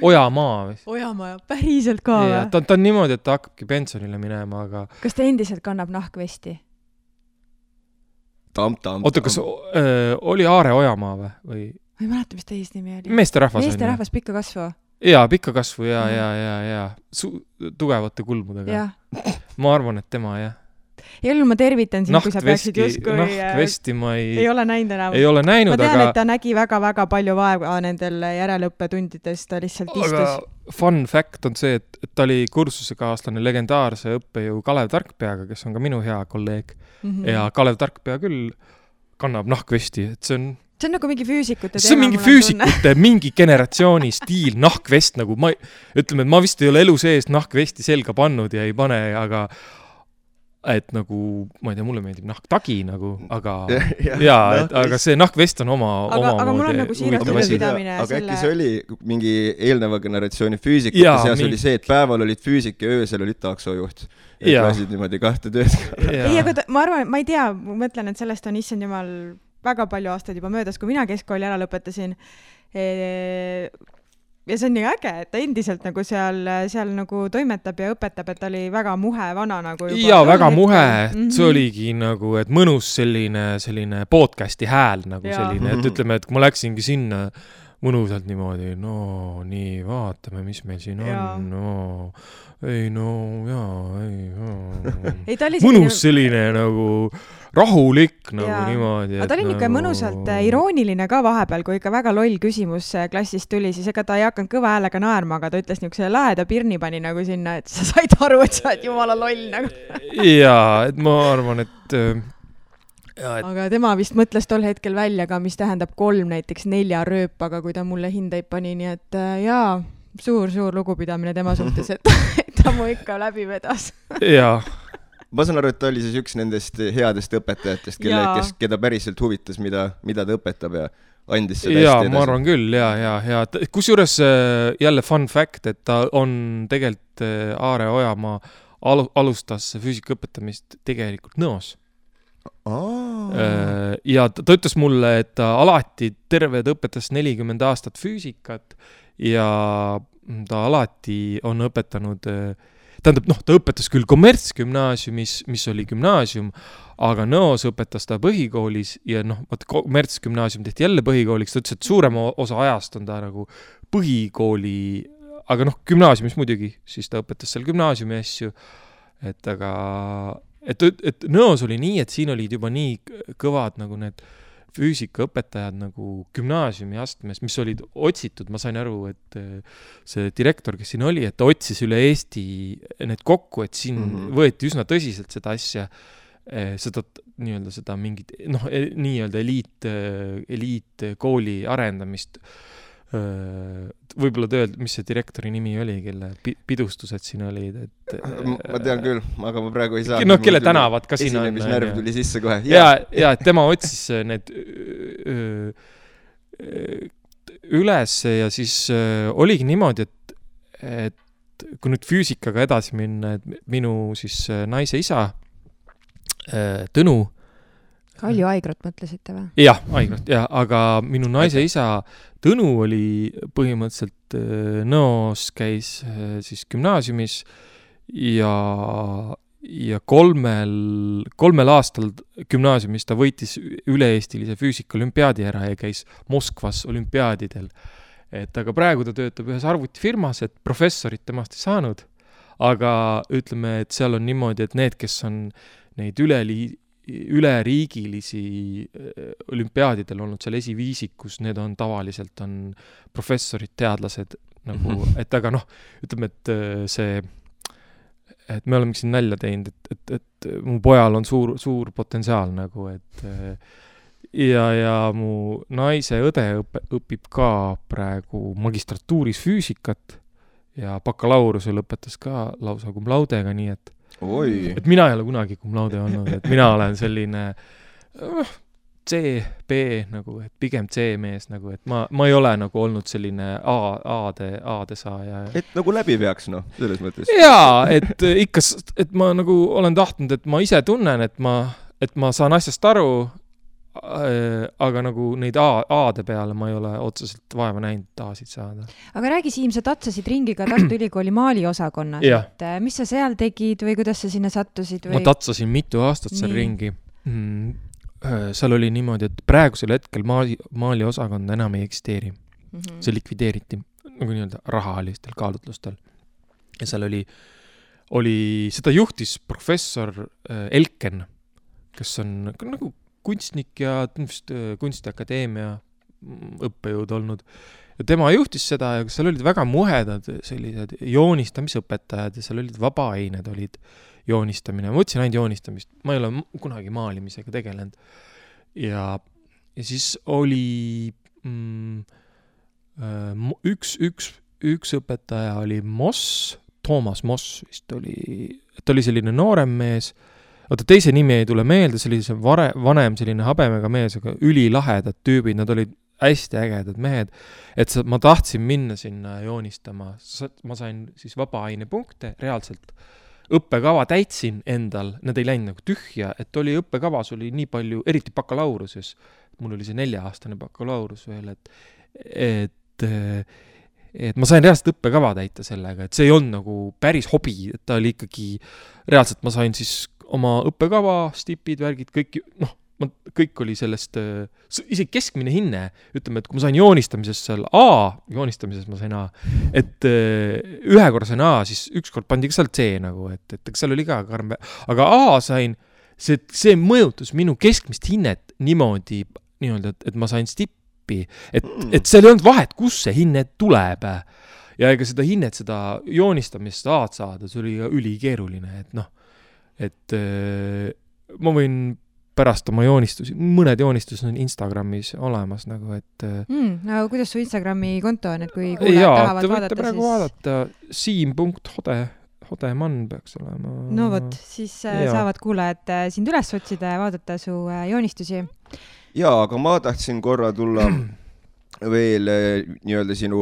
Ojamaa. Ojamaa, päriselt ka või? Ta on niimoodi, et ta hakkabki pensionile minema, aga... Kas ta endiselt kannab nahkvesti? Oota, kas oli Aare Ojamaa või? Ma ei mäleta, mis teis nimi oli. Meesterahvas pikka kasvu. Jaa, pikka kasvu, ja. Tugevate kulmudega. Ma arvan, et tema, jah. Ja ma tervitan sind, kui sa peaksid justkui... Nahkvesti ma ei ole näinud enam. Ei ole näinud, aga... Ma tean, et ta nägi väga-väga palju vaeva nendel järeleõppetundides, ta lihtsalt istus. Aga fun fact on see, et ta oli kursusekaaslane legendaarse õppejõu Kalev Tarkpeaga, kes on ka minu hea kolleeg. Ja Kalev Tarkpea küll kannab nahkvesti, et see on nagu mingi füüsikute teema. See on mingi füüsikute, mingi generatsiooni stiil, nahkvest, nagu ütleme, et ma vist ei ole elu sees nahkvesti selga pannud ja ei pane, aga et nagu, ma ei tea, mulle meeldib nahktagi nagu, aga aga see nahkvest on oma aga mul on nagu siirastada pidamine. Aga äkki see oli mingi eelneva generatsiooni füüsikute seas oli see, et päeval olid füüsik ja öösel olid taksojuht. Et lasid niimoodi kahte tööd. Ei, aga ma arvan, ma ei tea, ma mõtlen, et sellest on issand jumal väga palju aastaid juba möödas, kui mina keskkooli ära lõpetasin. Ja see on nii äge, et ta endiselt nagu seal nagu toimetab ja õpetab, et ta oli väga muhe vana nagu juba. Ja väga muhe, see oligi nagu, et mõnus selline podcasti hääl nagu selline, et ütleme, et kui ma läksingi sinna mõnusalt niimoodi, nii, vaatame, mis meil siin on, mõnus selline nagu rahulik nagu niimoodi. Aga ta oli ikka mõnusalt irooniline ka vahepeal, kui ikka väga loll küsimus klassist tuli, siis ega ta ei hakanud kõva häälega naerma, aga ta ütles niisuguse laheda pirni pani nagu sinna, et sa said aru, et sa oled jumala loll nagu. Jaa, et ma arvan, et aga tema vist mõtles tol hetkel välja ka, mis tähendab 3 näiteks 4 rööpaga, kui ta mulle hindeid pani, nii et suur lugupidamine tema suhtes, et ta mu ikka läbi vedas. Jaa. Ma saan aru, et ta oli siis üks nendest headest õpetajatest, keda päriselt huvitas, mida ta õpetab ja andis seda hästi edasi. Ma arvan küll, ja. Kusjuures jälle fun fact, et ta on tegelikult Aare Ojamaa alustas füüsika õpetamist tegelikult Nõos. Ja ta ütles mulle, et ta alati terve õpetas 40 aastat füüsikat ja ta alati on õpetanud, tähendab, ta õpetas küll kommertsgümnaasiumis, mis oli gümnaasium, aga Nõos õpetas ta põhikoolis ja kommertsgümnaasium tehti jälle põhikooliks, ta ütles, et suurema osa ajast on ta nagu põhikooli, aga gümnaasiumis muidugi, siis ta õpetas seal gümnaasiumi asju, et Nõos oli nii, et siin olid juba nii kõvad nagu need füüsikaõpetajad nagu gümnaasiumi astmes, mis olid otsitud, ma sain aru, et see direktor, kes siin oli, et ta otsis üle Eesti need kokku, et siin võeti üsna tõsiselt seda asja, seda mingit, nii-öelda eliitkooli arendamist. Võib-olla tööld, mis see direktori nimi oli, kelle pidustused siin olid, et... Ma tean küll, aga ma praegu ei saa. Kelle tänavad ka siin on. Esinemisnärv tuli sisse kohe. Ja et tema otsis need üles ja siis oligi niimoodi, et kui nüüd füüsikaga edasi minna, et minu siis naise isa, Tõnu, Kalju Aigrot mõtlesite või? Jah, Aigrot, aga minu naise isa Tõnu oli põhimõtteliselt Nõos käis siis gümnaasiumis ja kolmel aastal gümnaasiumis ta võitis üle-eestilise füüsika-olümpiaadi ära ja käis Moskvas olümpiaadidel. Aga praegu ta töötab ühes arvutifirmas, et professorit temast ei saanud, aga ütleme, et seal on niimoodi, et need, kes on neid üleriigilisi olümpiaadidel olnud seal esiviisikus, need on tavaliselt on professorid, teadlased nagu, et aga ütleme, et me oleme siin nälja teinud, et mu pojal on suur potentsiaal nagu, et ja mu naise õde õpib ka praegu magistratuuris füüsikat ja bakalaureusel õpetas ka lausa cum laudega, nii et mina ei ole kunagi cum laude olnud, et mina olen selline C, B nagu, et pigem C-mees nagu, et ma ei ole nagu olnud selline A-de saaja. Et nagu läbi peaks, selles mõttes. Jaa, et ikka, et ma nagu olen tahtnud, et ma ise tunnen, et ma saan asjast aru, aga nagu neid A-de peale ma ei ole otseselt vaeva näinud A-sid saada. Aga räägi, Siim, sa tatsasid ringi ka Tartu Ülikooli maaliosakonna, et mis sa seal tegid või kuidas sa sinna sattusid? Ma tatsasin mitu aastat seal ringi. Seal oli niimoodi, et praegusel hetkel maaliosakond enam ei eksisteeri. See likvideeriti nagu nii-öelda rahalistel kaalutlustel. Ja seal oli seda juhtis professor Elken, kes on nagu kunstnik ja kunstiakadeemia õppejõud olnud. Ja tema juhtis seda ja seal olid väga muhedad sellised joonistamisõpetajad ja seal olid vabaained, olid joonistamine. Ma võtsin ainult joonistamist. Ma ei ole kunagi maalimisega tegelenud. Ja siis oli üks õpetaja oli Toomas Moss vist oli, et oli selline noorem mees. Teise nimi ei tule meelde, see oli see vanem selline habemega mees, aga ülilahedad tüübid, nad olid hästi ägedad mehed, et ma tahtsin minna sinna joonistama. Ma sain siis vabaaine punkte, reaalselt õppekava täitsin endal, nad ei läinud nagu tühja, et oli õppekavas oli nii palju, eriti bakalauruses, mul oli see 4-aastane bakalaurus veel, et ma sain reaalselt õppekava täita sellega, et see ei olnud nagu päris hobi, et ta oli ikkagi, reaalselt ma sain siis oma õppekava, stipid, värgid, kõik oli sellest, isegi keskmine hinne, ütleme, et kui ma sain joonistamises seal joonistamises ma sain A, et ühekordsena A, siis ükskord pandi ka seal C nagu, et seal oli ka karm, aga A sain, see mõjutus minu keskmist hinnet niimoodi, et ma sain stippi, et seal ei olnud vahet, kus see hinne tuleb. Ja ega seda hinnet, seda joonistamist A-d saada, see oli ülikeeruline, et ma võin pärast oma joonistusi, mõned joonistused on Instagramis olemas nagu, et aga kuidas su Instagrami konto on, et kui kuulajad tahavad vaadata, te võite praegu vaadata Siim.Hodemann peaks olema. No võt, siis saavad kuulajad sind üles otsida ja vaadata su joonistusi. Jaa, aga ma tahtsin korra tulla veel nii-öelda sinu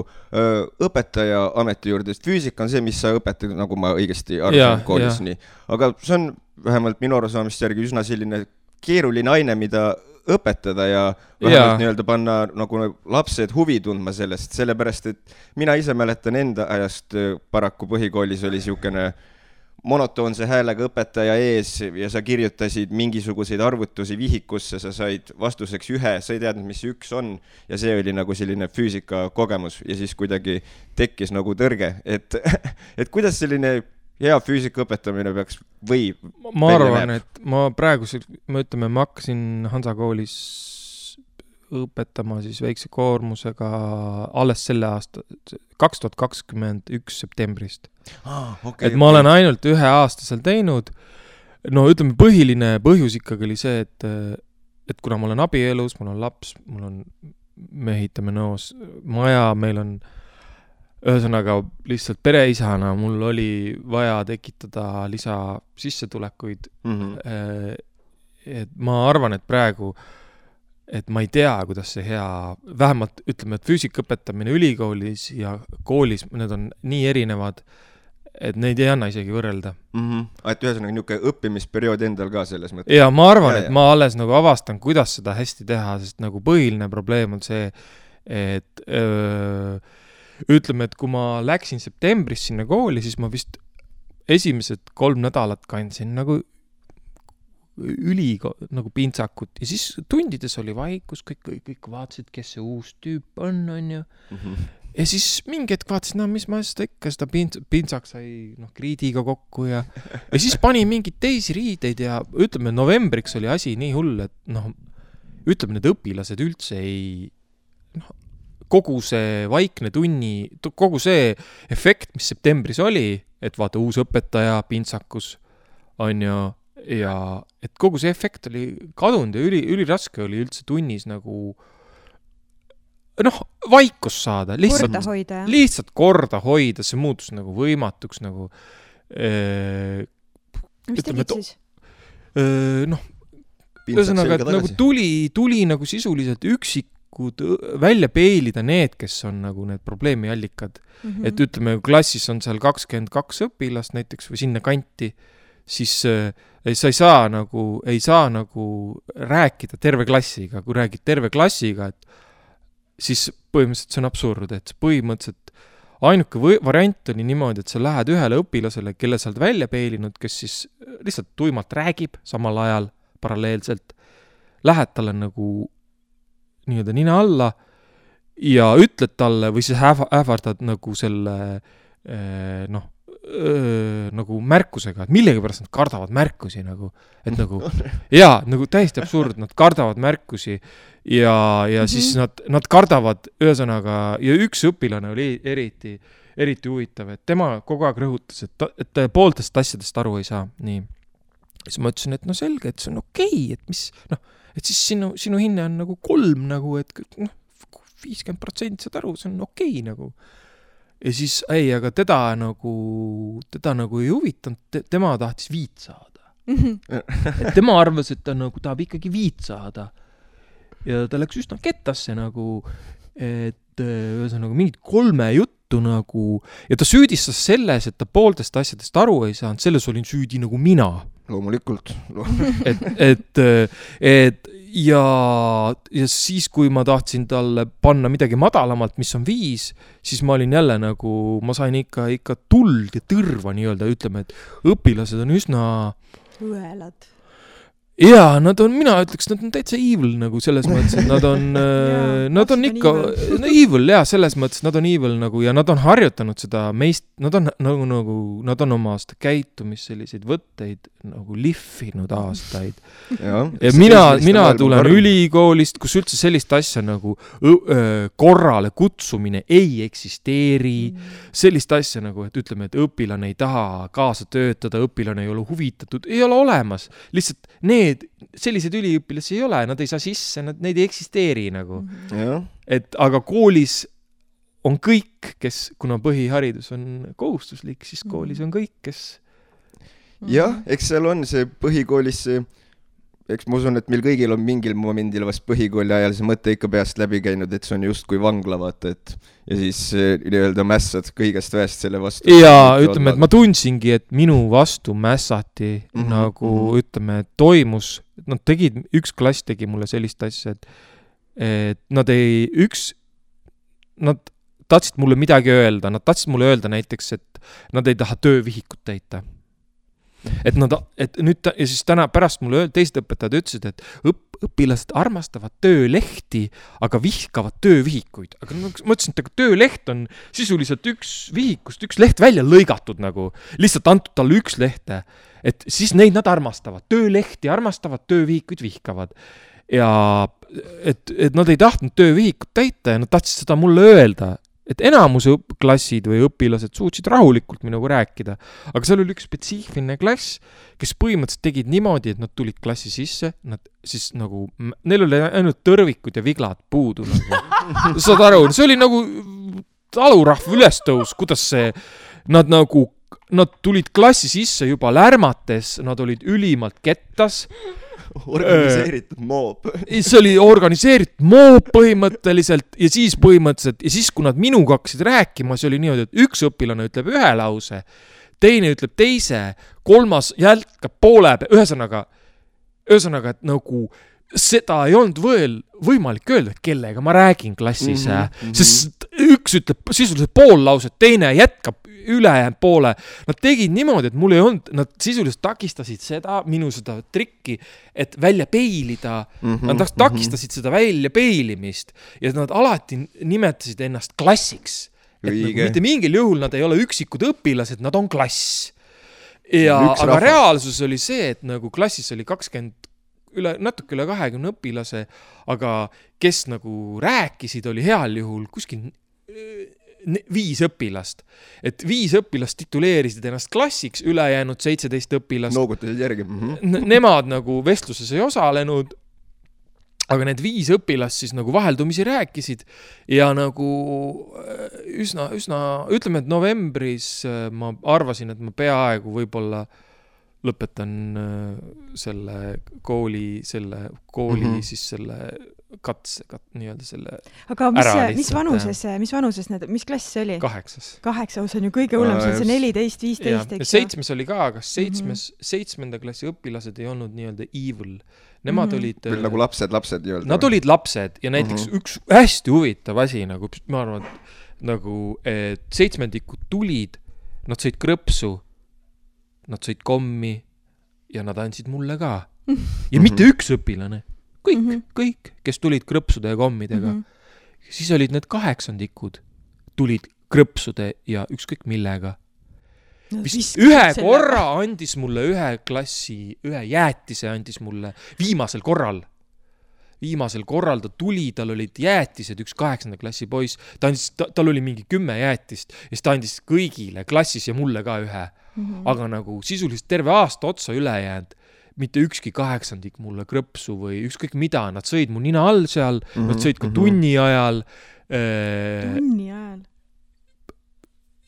õpetaja ameti juurde, sest füüsika on see, mis sa õpetad, nagu ma õigesti arvan koolis nii. Aga see on vähemalt minu arusaamist järgi üsna selline keeruline aine, mida õpetada ja vähemalt nii-öelda panna nagu lapsed huvi tundma sellest, sellepärast, et mina ise mäletan enda ajast paraku põhikoolis oli siukene monotoonse häälega õpetaja ees ja sa kirjutasid mingisuguseid arvutusi vihikusse, sa said vastuseks 1, sa ei teadnud, mis see 1 on ja see oli nagu selline füüsika kogemus ja siis kuidagi tekkis nagu tõrge, et kuidas selline hea füüsika õpetamine peaks või ma arvan, et ma hakkasin Hansa koolis õpetama siis väikse koormusega alles selle aasta 2021 septembrist. Et ma olen ainult 1 aasta seal teinud. No ütleme, põhiline põhjus ikkagi oli see, et kuna ma olen abielus, mul on laps, me ehitame Nõos maja, meil on ühesõnaga lihtsalt pereisana, mul oli vaja tekitada lisa sissetulekuid. Et ma arvan, et praegu et ma ei tea, kuidas see hea, vähemalt ütleme, et füüsika õpetamine ülikoolis ja koolis, need on nii erinevad, et neid ei anna isegi võrrelda. Et ühesõnaga niisugune õppimisperiood endal ka selles mõttes. Ja ma arvan, et ma alles nagu avastan, kuidas seda hästi teha, sest nagu põhiline probleem on see, et ütleme, et kui ma läksin septembris sinna kooli, siis ma vist esimesed 3 nädalat kandsin nagu nagu pintsakut ja siis tundides oli vaikus, kõik vaatasid, kes see uus tüüp on ju. Ja siis mingi hetk vaatasid, mis ma seda pintsak sai kriidiga kokku ja siis pani mingeid teisi riideid ja ütleme, novembriks oli asi nii hull, et ütleme, need õpilased üldse ei kogu see vaikne tunni, kogu see efekt, mis septembris oli, et vaata uus õpetaja pintsakus on ju ja et kogu see efekt oli kadunud ja üliraske oli üldse tunnis nagu vaikus saada. Lihtsalt korda hoida, see muutus nagu võimatuks nagu mis tegid siis? Ühesõnaga, et nagu tuli nagu sisuliselt üksikud välja peilida need, kes on nagu need probleemi allikad. Et ütleme, klassis on seal 22 õpilast näiteks või sinna kanti, siis sa ei saa nagu rääkida terve klassiga. Kui räägid terve klassiga, et siis põhimõtteliselt see on absurd, et põhimõtteliselt ainuke variant oli niimoodi, et sa lähed ühele õpilasele, kelle sa oled välja peilinud, kes siis lihtsalt tuimalt räägib samal ajal paralleelselt, lähed talle nagu nii-öelda nina alla ja ütled talle või siis ähvardad nagu selle nagu märkusega, et millegipärast nad kardavad märkusi nagu, et nagu jaa, nagu täiesti absurd, nad kardavad märkusi ja siis nad kardavad ühesõnaga ja üks õpilane oli eriti huvitav, et tema kogu aeg rõhutas, et pooltest asjadest aru ei saa, nii. Siis ma ütlesin, et selge, et see on okei, et mis, et siis sinu hinne on nagu 3 nagu, et 50% saad aru, see on okei nagu. Ja siis, aga teda nagu ei huvitanud, tema tahtis 5 saada. Et tema arvas, et ta nagu tahab ikkagi 5 saada. Ja ta läks üsna kettasse nagu, et ühesõnaga mingid 3 juttu nagu, ja ta süüdistas selles, et ta pooltest asjadest aru ei saanud, selles olin süüdi nagu mina. Loomulikult. Ja siis, kui ma tahtsin talle panna midagi madalamalt, mis on 5, siis ma olin jälle nagu, ma sain ikka tuld ja tõrva nii-öelda, ütleme, et õpilased on üsna õelad. Jaa, mina ütleks, nad on täitsa evil nagu selles mõttes, et nad on ikka evil, jaa, selles mõttes, nad on evil nagu ja nad on harjutanud seda meist, nad on oma aasta käitumist selliseid võtteid nagu lihvinud aastaid. Ja mina tulen ülikoolist, kus üldse sellist asja nagu korrale kutsumine ei eksisteeri, sellist asja nagu, et ütleme, et õpilane ei taha kaasa töötada, õpilane ei ole huvitatud, ei ole olemas, lihtsalt sellised üliõpilasi ei ole, nad ei saa sisse, neid ei eksisteeri nagu. Et aga koolis on kõik, kes, kuna põhiharidus on kohustuslik, siis koolis on kõik, kes... Jah, eks seal on see põhikoolis see... Eks ma usun, et meil kõigil on mingil momendil vast põhikooli ajal see mõte ikka peast läbi käinud, et see on just kui vangla, vaata, et ja siis nii-öelda mässad kõigest väest selle vastu. Ja ütleme, et ma tundsingi, et minu vastu mässati nagu, ütleme, toimus nad tegid, üks klass tegi mulle sellist asja, et nad tahtsid mulle midagi öelda, nad tahtsid mulle öelda näiteks, et nad ei taha töövihikut täita. Et nüüd ja siis täna pärast mulle teised õpetajad ütlesid, et õpilased armastavad töölehti, aga vihkavad töövihikuid. Aga ma mõtlesin, et tööleht on sisuliselt üks vihikust, üks leht välja lõigatud nagu, lihtsalt antud talle üks lehte. Et siis neid nad armastavad, töölehti armastavad, töövihikuid vihkavad. Ja et nad ei tahtnud töövihikut täita ja nad tahtsid seda mulle öelda. Et enamuse klassid või õpilased suutsid rahulikult minuga rääkida. Aga seal oli üks spetsiifiline klass, kes põhimõtteliselt tegid niimoodi, et nad tulid klassi sisse, nad siis nagu, neil oli ainult tõrvikud ja viglad puudu. Nagu. Saad aru, see oli nagu talurahv ülestõus, kuidas see, nad tulid klassi sisse juba lärmates, nad olid ülimalt kettas. Organiseeritud moob. See oli organiseeritud moob põhimõtteliselt ja siis kui nad minuga hakkasid rääkima, see oli niimoodi, et üks õpilane ütleb ühe lause, teine ütleb teise, kolmas jälkab poole, ühesõnaga, et nagu seda ei olnud võimalik öelda, kellega ma räägin klassis, sest üks ütleb sisuliselt pool lauset, teine jätkab ülejäänud poole. Nad tegid niimoodi, et mul ei olnud, nad sisuliselt takistasid minu seda trikki, et välja peilida. Nad takistasid seda välja peilimist ja nad alati nimetasid ennast klassiks. Mitte mingil juhul nad ei ole üksikud õpilased, nad on klass. Aga reaalsus oli see, et nagu klassis oli natuke üle 20 õpilase, aga kes nagu rääkisid, oli heal juhul kuskil 5 õpilast. Et 5 õpilast tituleerisid ennast klassiks, ülejäänud 17 õpilast. Noogutasid järgi. Nemad nagu vestluses ei osalenud, aga need 5 õpilast siis nagu vaheldumisi rääkisid ja nagu üsna, ütleme, et novembris ma arvasin, et ma peaaegu võib-olla lõpetan selle kooli siis selle katse, nii-öelda selle aga mis vanuses mis klass see oli? 8. See on ju kõige hullem, see on 14, 15. Ja 7 oli ka, aga 7. klassi õpilased ei olnud nii-öelda evil. Nemad olid nagu lapsed nii-öelda. Nad olid lapsed ja näiteks üks hästi huvitav asi, nagu ma arvan, et 7-ndikud tulid, nad sõid krõpsu, nad sõid kommi ja nad andsid mulle ka. Ja mitte üks õpilane. Kõik, kes tulid krõpsude ja kommidega. Siis olid need 8-ndikud, tulid krõpsude ja ükskõik millega. Ühe korra andis mulle ühe jäätise andis mulle viimasel korral. Ta tuli, tal olid jäätised, üks 8. klassi poiss, tal oli mingi 10 jäätist ja siis ta andis kõigile klassis ja mulle ka ühe. Aga nagu sisuliselt terve aasta otsa üle jäänud, mitte ükski 8-ndik mulle krõpsu või ükskõik mida, nad sõid mu nina all seal, nad sõid ka tunni ajal. Tunni ajal?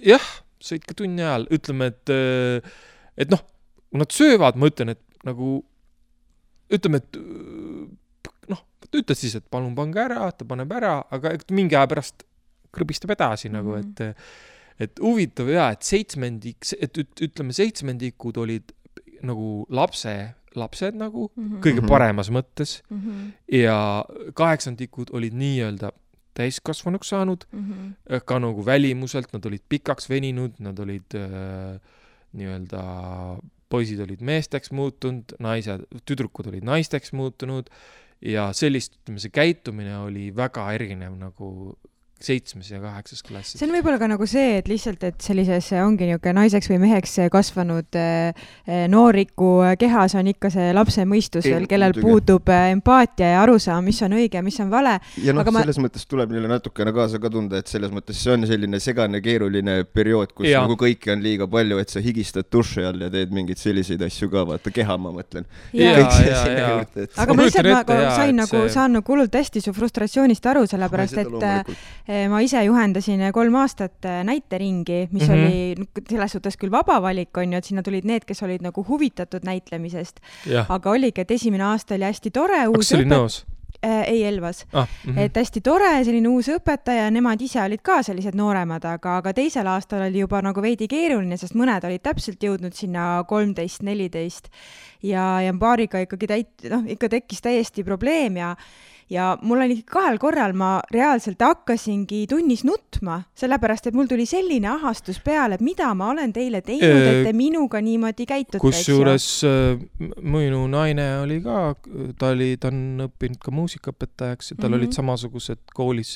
Jah, sõid ka tunni ajal. Ütleme, et noh, kui nad söövad, ma ütlen, et nagu, ütleme, et ütled siis, et palun pange ära, ta paneb ära, aga mingi aja pärast krõbistab edasi nagu, et huvitav ja, et ütleme 7-ndikud olid nagu lapsed nagu, kõige paremas mõttes ja 8-ndikud olid nii-öelda täiskasvanuks saanud, ka nagu välimuselt, nad olid pikaks veninud, nad olid nii-öelda, poisid olid meesteks muutunud, tüdrukud olid naisteks muutunud ja sellist, ütleme, see käitumine oli väga erinev nagu 7. ja 8. klassis. See on võib-olla ka nagu see, et lihtsalt, et sellises ongi niuke naiseks või meheks kasvanud nooriku kehas on ikka see lapse mõistus veel, kellel puudub empaatia ja arusaam, mis on õige, mis on vale. Ja selles mõttes tuleb neile natukene kaasa ka tunda, et selles mõttes see on selline segane keeruline periood, kus nagu kõiki on liiga palju, et sa higistad duši all ja teed mingeid selliseid asju ka, vaata keha, ma mõtlen. Aga ma lihtsalt saan nagu hullult hästi su frustratsioonist aru, sellepärast, et ma ise juhendasin 3 aastat näiteringi, mis oli selles suhtes küll vaba valik on ju, et sinna tulid need, kes olid nagu huvitatud näitlemisest. Aga oligi, et esimene aasta oli hästi tore. Kas oli nõus? Ei Elvas. Et hästi tore, selline uus õpetaja, nemad ise olid ka sellised nooremad, aga teisel aastal oli juba nagu veidi keeruline, sest mõned olid täpselt jõudnud sinna 13-14 ja paariga ikkagi ikka tekkis täiesti probleem ja mul oli 2 korral ma reaalselt hakkasingi tunnis nutma, sellepärast, et mul tuli selline ahastus peale, et mida ma olen teile teinud, et te minuga niimoodi käitute. Kusjuures minu naine oli ka, ta on õppinud ka muusikaõpetajaks ja tal olid samasugused koolis,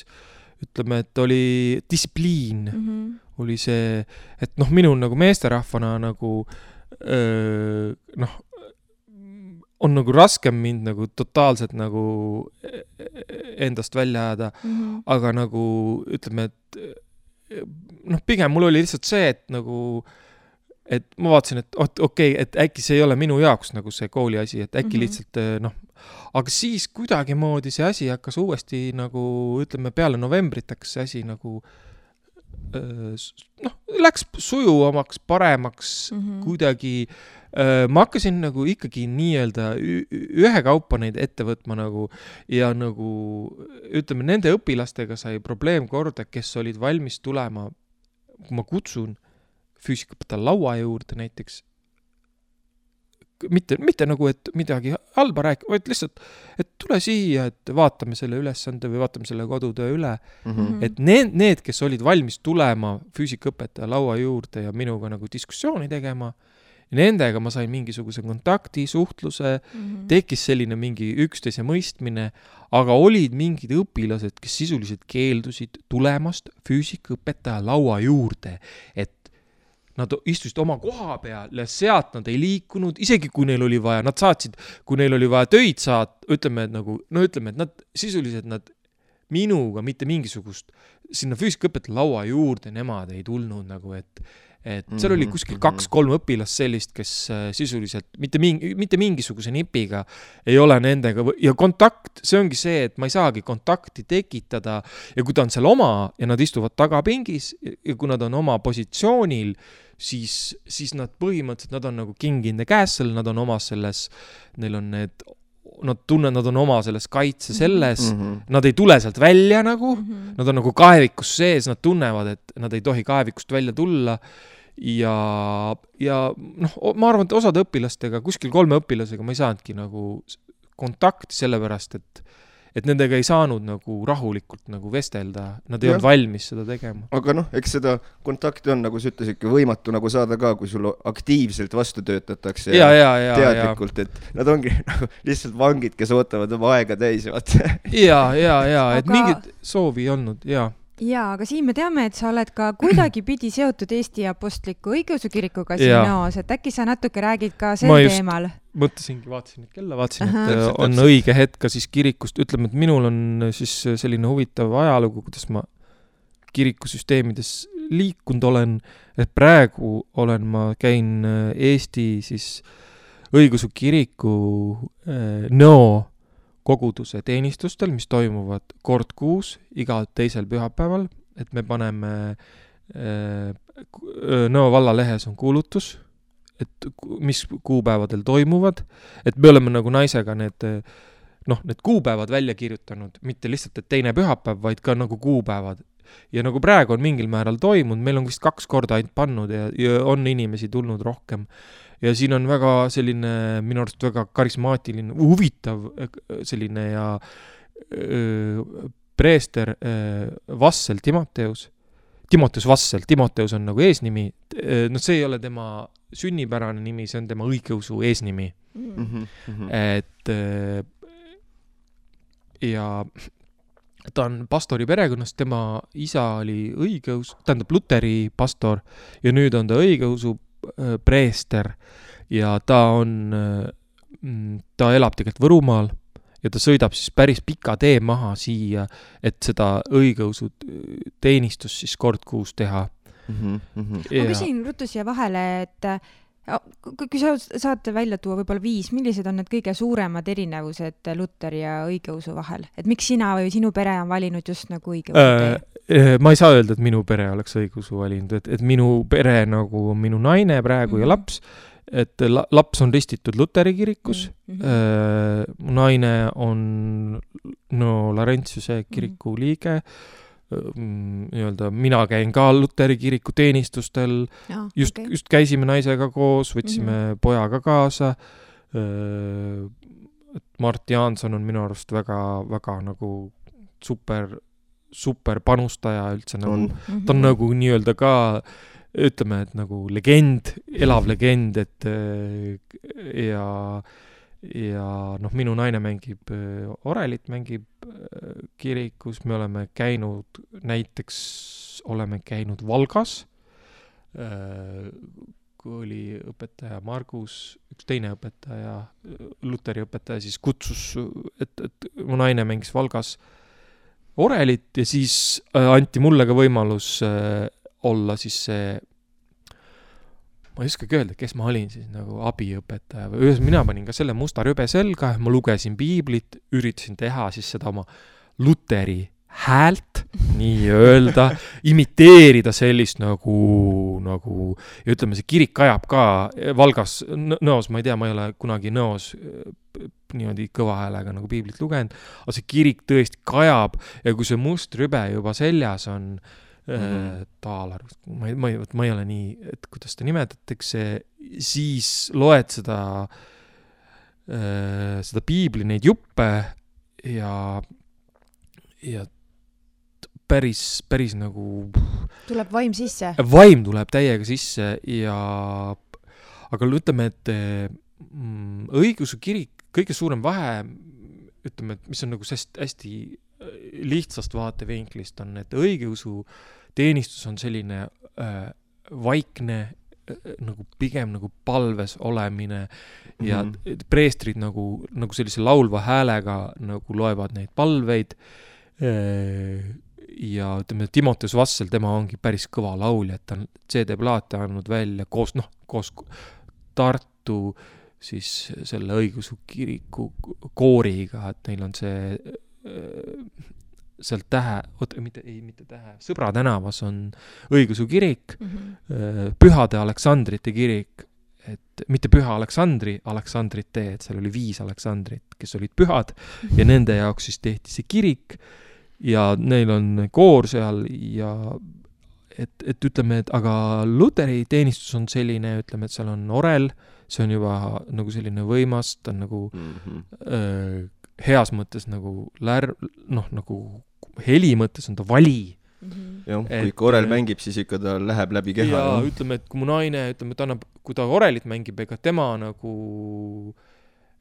ütleme, et oli distsipliin, oli see, et minul nagu meesterahvana nagu on nagu raskem mind nagu totaalselt nagu endast välja ajada, aga nagu ütleme, et pigem mul oli lihtsalt see, et nagu, et ma vaatasin, et okei, et äkki see ei ole minu jaoks nagu see kooli asi, et äkki lihtsalt aga siis kuidagi moodi see asi hakkas uuesti nagu, ütleme, peale novembrit hakkas see asi nagu läks sujuvamaks, paremaks kuidagi. Ma hakkasin nagu ikkagi nii-öelda ühekaupa neid ette võtma nagu ja nagu ütleme, nende õpilastega sai probleem korda, kes olid valmis tulema, kui ma kutsun füüsikapõta laua juurde näiteks, mitte nagu, et midagi halba rääkida, vaid lihtsalt, et tule siia, et vaatame selle ülesande või vaatame selle kodutöö üle. Et need, kes olid valmis tulema füüsikõpetaja laua juurde ja minuga nagu diskussiooni tegema, nendega ma sain mingisuguse kontakti, suhtluse, tekkis selline mingi üksteise mõistmine, aga olid mingid õpilased, kes sisuliselt keeldusid tulemast füüsikõpetaja laua juurde, et nad istusid oma koha peal ja sealt nad ei liikunud, isegi kui neil oli vaja, nad saatsid, kui neil oli vaja töid ütleme, et nad sisuliselt nad minuga mitte mingisugust sinna füüsikõpetaja laua juurde nemad ei tulnud nagu, et seal oli kuskil 2-3 õpilast sellist, kes sisuliselt mitte mingisuguse nipiga ei ole nendega ja kontakt, see ongi see, et ma ei saagi kontakti tekitada ja kui ta on seal oma ja nad istuvad tagapingis ja kui nad on oma positsioonil, siis nad põhimõtteliselt, nad on nagu king in the castle, nad on oma selles, neil on need nad on oma selles kaitse selles, nad ei tule sealt välja nagu, nad on nagu kaevikus sees, nad tunnevad, et nad ei tohi kaevikust välja tulla ja ma arvan, et osad õpilastega, kuskil 3 õpilasega ma ei saanudki nagu kontakti sellepärast, et nendega ei saanud nagu rahulikult nagu vestelda, nad ei olnud valmis seda tegema. Aga eks seda kontakti on, nagu sa ütlesidki, võimatu nagu saada ka, kui sul aktiivselt vastu töötatakse teadlikult, et nad ongi nagu lihtsalt vangid, kes ootavad oma aega täis. Et mingit soovi ei olnud, Jaa, aga siin me teame, et sa oled ka kuidagi pidi seotud Eesti Apostliku Õigeusu Kirikuga Sinoos, et äkki sa natuke räägid ka sel teemal? Mõtlesingi, vaatasin kella, et on õige hetk ka siis kirikust. Ütleme, et minul on siis selline huvitav ajalugu, kuidas ma kirikusüsteemides liikunud olen, et praegu käin Eesti siis Õigeusu Kiriku koguduse teenistustel, mis toimuvad kord kuus, iga teisel pühapäeval, et me paneme Nõo valla lehes on kuulutus, et mis kuupäevadel toimuvad, et me oleme nagu naisega need kuupäevad välja kirjutanud, mitte lihtsalt, et teine pühapäev, vaid ka nagu kuupäevad. Ja nagu praegu on mingil määral toimunud, meil on vist 2 korda ainult pannud ja on inimesi tulnud rohkem. Ja siin on väga selline, minu arust väga karismaatiline, huvitav selline ja preester Vassel Timoteus Vassel, Timoteus on nagu eesnimi, see ei ole tema sünnipärane nimi, see on tema õigeusu eesnimi. Et ja ta on pastori perekonnast, tema isa oli õigeus, tähendab luteri pastor ja nüüd on ta õigeusu preester ja ta elab tegelikult Võrumaal ja ta sõidab siis päris pika tee maha siia, et seda õigeusu teenistust siis kord kuus teha. Ma küsin ruttu siia vahele, et kui sa saate välja tuua võib-olla 5, millised on need kõige suuremad erinevused luteri ja õigeusu vahel? Et miks sina või sinu pere on valinud just nagu õigeusu tee? Ma ei saa öelda, et minu pere oleks õigeusu valinud, et minu pere nagu on minu naine praegu ja laps et laps on ristitud Luteri kirikus, mu naine on Laurentiuse kiriku liige, nii-öelda mina käin ka Luteri kiriku teenistustel, just käisime naisega koos, võtsime pojaga kaasa, Mart Jaanson on minu arust väga nagu super panustaja üldse nagu, ta on nagu nii-öelda ka, ütleme, et nagu legend, elav legend, et ja minu naine mängib orelit, mängib kirikus, me oleme käinud Valgas, kui oli õpetaja Margus, üks teine õpetaja, Luteri õpetaja, siis kutsus, et mu naine mängis Valgas orelit ja siis anti mulle ka võimalus olla siis see, ma ei oskagi öelda, kes ma olin siis nagu abiõpetaja või mina panin ka selle musta rübe selga, ma lugesin piiblit, üritasin teha siis seda oma Luteri häält, nii öelda, imiteerida sellist nagu ja ütleme, see kirik ajab ka Valgas nõos, ma ei tea, ma ei ole kunagi nõos niimoodi kõva häälega nagu piiblit lugenud, aga see kirik tõesti kajab ja kui see must rübe juba seljas on taalar, ma ei ole nii, et kuidas ta nimetatakse, siis loed seda piibli neid juppe ja päris nagu tuleb vaim sisse. Vaim tuleb täiega sisse aga ütleme, et õigeusu kirik, kõige suurem vahe, ütleme, et mis on nagu hästi lihtsast vaatevinklist on, et õigeusu teenistus on selline vaikne, nagu pigem nagu palves olemine ja preestrid nagu sellise laulva häälega nagu loevad neid palveid ja ütleme, Timoteus Vassel, tema ongi päris kõva laulja, et ta on CD-plaate andnud välja koos Tartu siis selle õigeusu kiriku kooriga, et neil on see seal mitte Tähe, Sõbra tänavas on õigeusu kirik, Pühade Aleksandrite kirik, et mitte Püha Aleksandrite, et seal oli 5 Aleksandrit, kes olid pühad ja nende jaoks siis tehti see kirik ja neil on koor seal ja et ütleme, et aga Luteri teenistus on selline, ütleme, et seal on orel, see on juba nagu selline võimas, ta on nagu heas mõttes nagu nagu heli mõttes on ta vali. Jah, kui orel mängib, siis ikka ta läheb läbi keha. Ja ütleme, et kui mu naine, kui ta orelit mängib, ega tema nagu,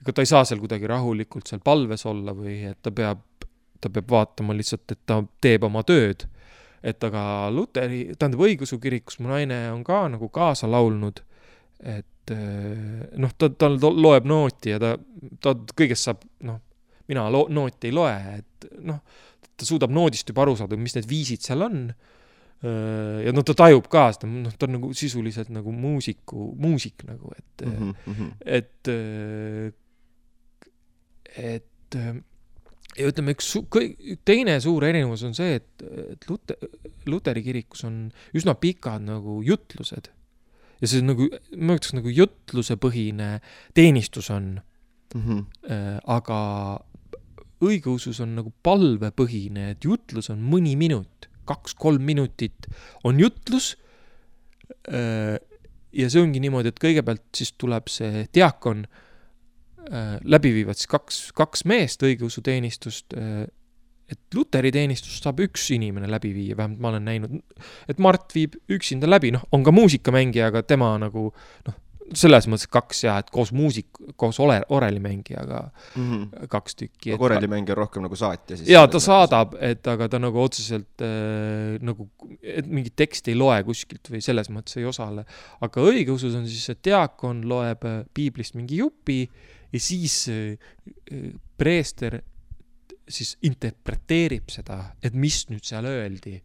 ega ta ei saa seal kuidagi rahulikult seal palves olla või et ta peab vaatama lihtsalt, et ta teeb oma tööd. Et aga Luteri, õigeusu kirikus mu naine on ka nagu kaasa laulnud, et ta loeb nooti ja ta kõigest saab, mina nooti ei loe, et ta suudab noodist juba aru saada, mis need viisid seal on ja ta tajub ka seda, ta on nagu sisuliselt nagu muusik nagu, et ja ütleme, teine suur erinevus on see, et Luteri kirikus on üsna pikad nagu jutlused ja see nagu, ma ütleks nagu jutlusepõhine teenistus on, aga õigeusus on nagu palvepõhine, et jutlus on mõni minut, 2-3 minutit on jutlus ja see ongi niimoodi, et kõigepealt siis tuleb see diakon, läbi viivad siis kaks meest õigeusu teenistust, et Luteri teenistust saab üks inimene läbi viia, vähemalt ma olen näinud, et Mart viib üksinda läbi, on ka muusikamängija, aga tema nagu, selles mõttes 2 ja, et koos orelimängijaga 2 tükki. Aga orelimängija on rohkem nagu saatja siis? Jaa, ta saadab, aga ta nagu otseselt nagu, et mingit teksti ei loe kuskilt või selles mõttes ei osale. Aga õigeusus on siis, et diakon loeb piiblist mingi jupi ja siis preester siis interpreteerib seda, et mis nüüd seal öeldi.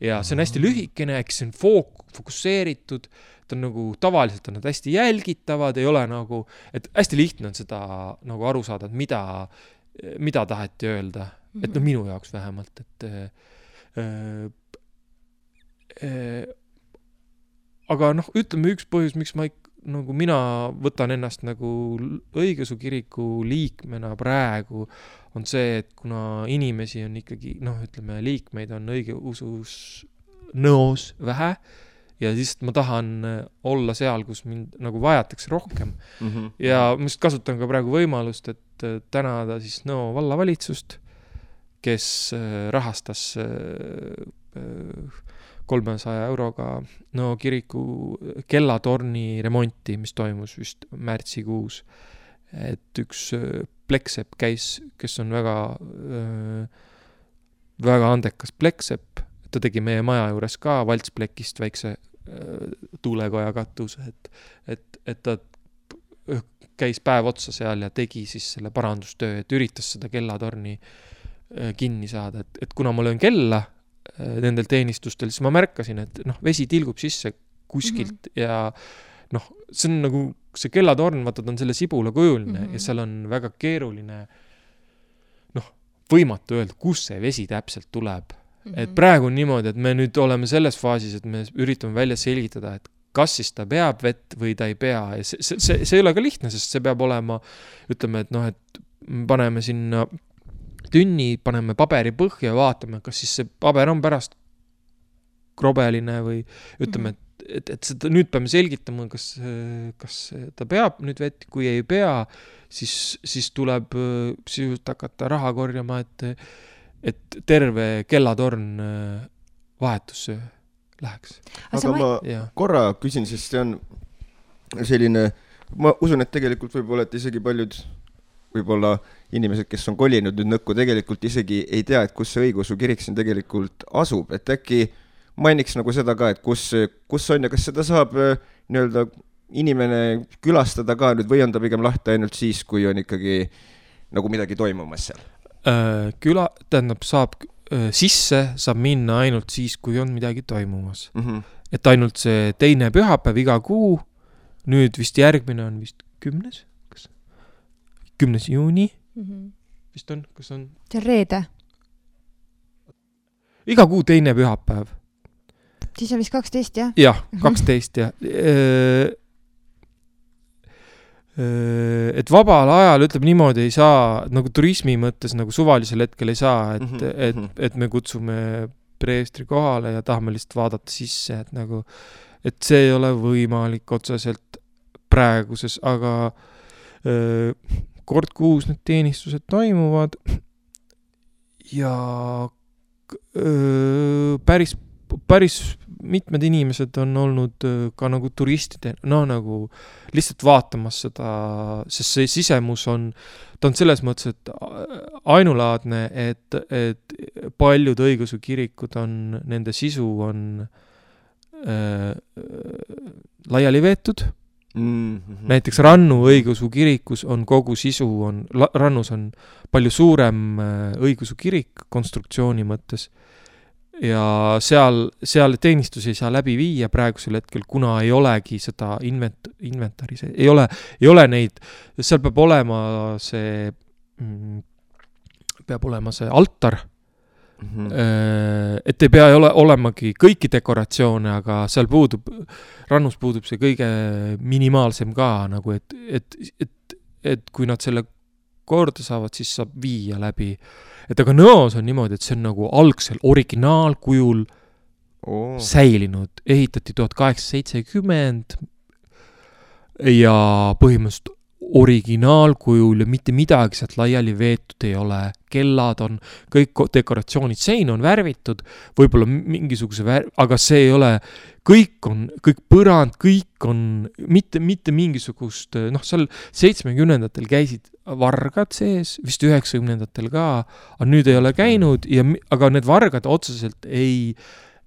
Ja see on hästi lühikene, eks see on fokusseeritud, ta on nagu, tavaliselt on nad hästi jälgitavad, ei ole nagu, et hästi lihtne on seda nagu aru saada, et mida taheti öelda. Et minu jaoks vähemalt, et aga ütleme üks põhjus, miks ma nagu mina võtan ennast nagu õigeusu kiriku liikmena praegu, on see, et kuna inimesi on ikkagi, ütleme, liikmeid on õigeusus nõos vähe ja siis ma tahan olla seal, kus mind nagu vajatakse rohkem. Ja ma just kasutan ka praegu võimalust, et tänada siis Nõo vallavalitsust, kes rahastas 300 euroga Nõo kiriku kellatorni remonti, mis toimus vist märtsikuus. Et üks pleksepp käis, kes on väga, väga andekas pleksepp, ta tegi meie maja juures ka valtsplekist väikse tuulekoja katuse, et ta käis päev otsa seal ja tegi siis selle parandustöö, et üritas seda kellatorni kinni saada, et kuna ma löön kella nendel teenistustel, siis ma märkasin, et vesi tilgub sisse kuskilt ja see on nagu see kellatorn, vaata, ta on selle sibula kujuline ja seal on väga keeruline võimatu öelda, kus see vesi täpselt tuleb. Et praegu on niimoodi, et me nüüd oleme selles faasis, et me üritame välja selgitada, et kas siis ta peab vett või ta ei pea. Ja see ei ole ka lihtne, sest see peab olema, ütleme, et et paneme sinna tünni, paneme paberi põhja ja vaatame, kas siis see paber on pärast krobeline või ütleme, et seda nüüd peame selgitama, kas ta peab nüüd vett, kui ei pea, siis tuleb sisuliselt hakata raha korjama, et terve kellatorn vahetusse läheks. Aga ma korra küsin, sest see on selline, ma usun, et tegelikult võib-olla, et isegi paljud võib-olla inimesed, kes on kolinud nüüd Nõkku, tegelikult isegi ei tea, et kus see õigeusu kirik siin tegelikult asub, et äkki mainiks nagu seda ka, et kus on ja kas seda saab nii-öelda inimene külastada ka nüüd või on ta pigem lahti ainult siis, kui on ikkagi nagu midagi toimumas seal? Saab sisse, saab minna ainult siis, kui on midagi toimumas. Et ainult see teine pühapäev iga kuu, nüüd vist järgmine on vist 10. 10. juuni. Vist on, kas on? See on reede. Iga kuu teine pühapäev. Siis on vist 12, jah? Jah, 12, jah. Et vabal ajal, ütleb niimoodi, ei saa, nagu turismi mõttes, nagu suvalisel hetkel ei saa, et me kutsume preestri kohale ja tahame lihtsalt vaadata sisse, et see ei ole võimalik otseselt praeguses, aga kord kuus need teenistused toimuvad ja päris mitmed inimesed on olnud ka nagu turistide, nagu lihtsalt vaatamas seda, sest see sisemus ta on selles mõttes, et ainulaadne, et paljud õigeusu kirikud nende sisu on laiali veetud. Näiteks Rannu õigeusu kirikus on kogu sisu, Rannus on palju suurem õigeusu kirik konstruktsiooni mõttes ja seal teenistusi ei saa läbi viia praegusel hetkel, kuna ei olegi seda inventari, ei ole neid, seal peab olema see altar, et ei pea olemagi kõiki dekoratsioone, aga seal Rannus puudub see kõige minimaalsem ka, nagu et kui nad selle korda saavad, siis saab viia läbi. Et aga Nõos on niimoodi, et see on nagu algsel originaalkujul säilinud, ehitati 1870 ja põhimõtteliselt originaalkujul ja mitte midagi sealt laiali veetud ei ole. Kellad on, kõik dekoratsioonid, sein on värvitud, võib-olla mingisuguse aga see ei ole, kõik põrand, kõik on mitte mingisugust, seal 70-ndatel käisid vargad sees, vist 90-ndatel ka, aga nüüd ei ole käinud, aga need vargad otseselt ei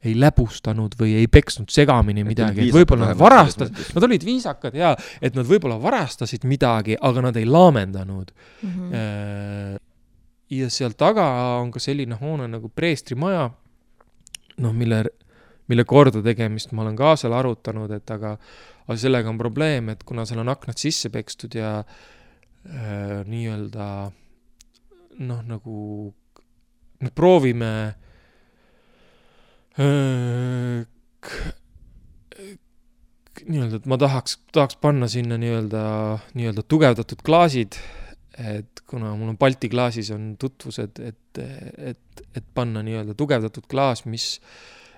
läbustanud või ei peksnud segamini midagi, et võib-olla nad olid viisakad ja et nad võib-olla varastasid midagi, aga nad ei laamendanud. Ja seal taga on ka selline hoone nagu preestrimaja, mille korda tegemist ma olen ka seal arutanud, et aga sellega on probleem, et kuna seal on aknad sisse pekstud ja nii-öelda nagu proovime nii-öelda, et ma tahaks panna sinna nii-öelda tugevdatud klaasid, et kuna mul on Balti klaasis on tutvused, et panna nii-öelda tugevdatud klaas,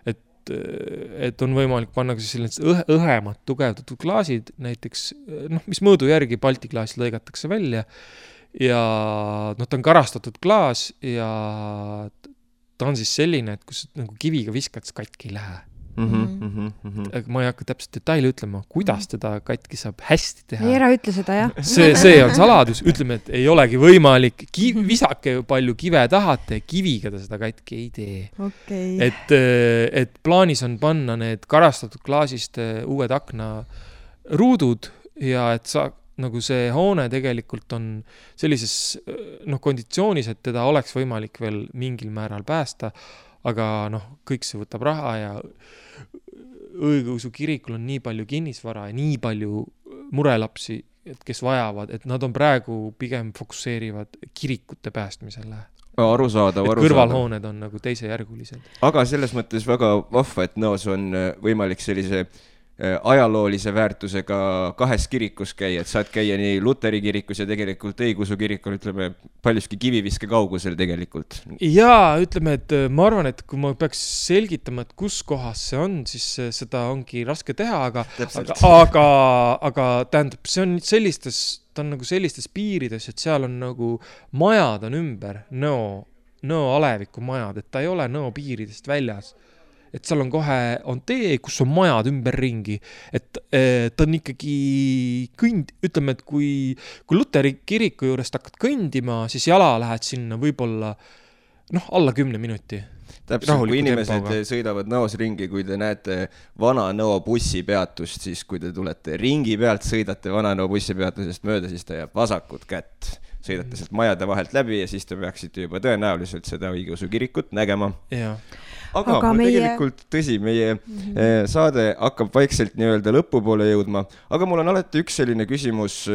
et on võimalik panna ka sellised õhemad tugevdatud klaasid, näiteks, mis mõõdu järgi Balti klaas lõigatakse välja ja ta on karastatud klaas ja ta on siis selline, et kus nagu kiviga viskad, siis katki ei lähe. Ma ei hakka täpselt detaili ütlema, kuidas teda katki saab hästi teha. Ei ära ütle seda, jah. See on saladus. Ütleme, et ei olegi võimalik. Visake palju kive tahate, kiviga ta seda katki ei tee. Okay. Et plaanis on panna need karastatud klaasist uued akna ruudud ja et nagu see hoone tegelikult on sellises konditsioonis, et teda oleks võimalik veel mingil määral päästa, aga kõik see võtab raha ja õigeusu kirikul on nii palju kinnisvara ja nii palju murelapsi, et kes vajavad, et nad on praegu pigem fokusseerivad kirikute päästmisele. Arusaadav. Kõrvalhooned on nagu teisejärgulised. Aga selles mõttes väga vahva, et Nõos on võimalik sellise ajaloolise väärtusega 2 kirikus käia, et saad käia nii Luteri kirikus ja tegelikult õigeusu kirikul, ütleme, paljuski kiviviske kaugusel tegelikult. Jaa, ütleme, et ma arvan, et kui ma peaks selgitama, et kus kohas see on, siis seda ongi raske teha, aga tähendab, see on ta on nagu sellistes piirides, et seal on nagu majad on ümber, Nõo aleviku majad, et ta ei ole Nõo piiridest väljas. Et seal on kohe tee, kus on majad ümberringi, et ta on ikkagi ütleme, et kui Luteri kiriku juurest hakkad kõndima, siis jala lähed sinna võib-olla alla 10 minuti. Täpselt, kui inimesed sõidavad Nõos ringi, kui te näete vana Nõo bussipeatust, siis kui te tulete ringi pealt, sõidate vana Nõo bussipeatusest mööda, siis ta jääb vasakut kätt. Sõidate sealt majade vahelt läbi ja siis te peaksite juba tõenäoliselt seda õigeusu kirikut nägema. Jaa. Aga tegelikult tõsi, meie saade hakkab vaikselt nii-öelda lõpupoole jõudma, aga mul on alati üks selline küsimus,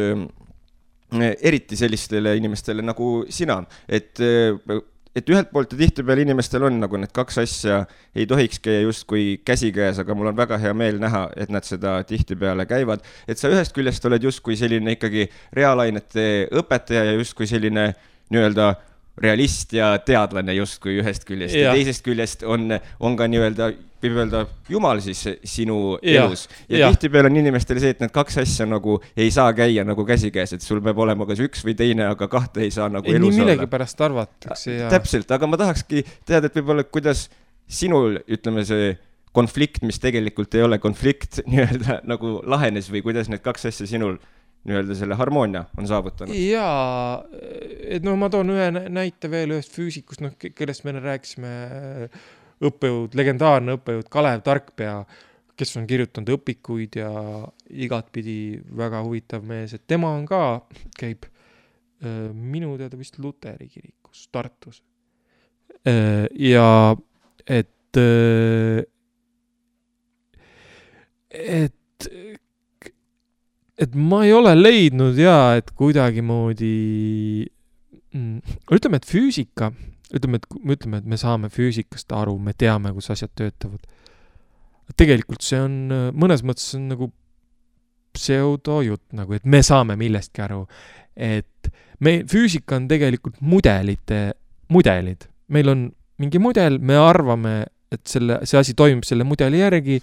eriti sellistele inimestele nagu sina, et ühelt poolt ja tihtipeale inimestel on nagu need 2 asja ei tohiks käia justkui käsikäes, aga mul on väga hea meel näha, et nad seda tihtipeale käivad, et sa ühest küljest oled justkui selline ikkagi reaalainete õpetaja ja justkui selline nii-öelda realist ja teadlane justkui ühest küljest ja teisest küljest on ka nii-öelda, võib öelda Jumal siis sinu elus. Ja tihtipeale on inimestele see, et need 2 asja nagu ei saa käia nagu käsikäes, et sul peab olema kas üks või teine, aga 2 ei saa nagu elus olla. Nii millegi pärast arvatakse. Täpselt, aga ma tahakski teada, et võib-olla kuidas sinul, ütleme see konflikt, mis tegelikult ei ole konflikt, nii-öelda nagu lahenes või kuidas need 2 asja sinul nii-öelda selle harmoonia on saavutanud. Jaa, et ma toon ühe näite veel ühest füüsikust, kellest me rääkisime legendaarne õppejõud Kalev Tarkpea, kes on kirjutanud õpikuid ja igatpidi väga huvitav mees, et tema on ka, käib minu teada vist Luteri kirikus Tartus. Ja et ma ei ole leidnud et kuidagi moodi ütleme, et füüsika, ütleme, et me saame füüsikast aru, me teame, kus asjad töötavad. Tegelikult see on, mõnes mõttes on nagu pseudojutt, nagu, et me saame millestki aru, et füüsika on tegelikult mudelid. Meil on mingi mudel, me arvame, et see asi toimib selle mudeli järgi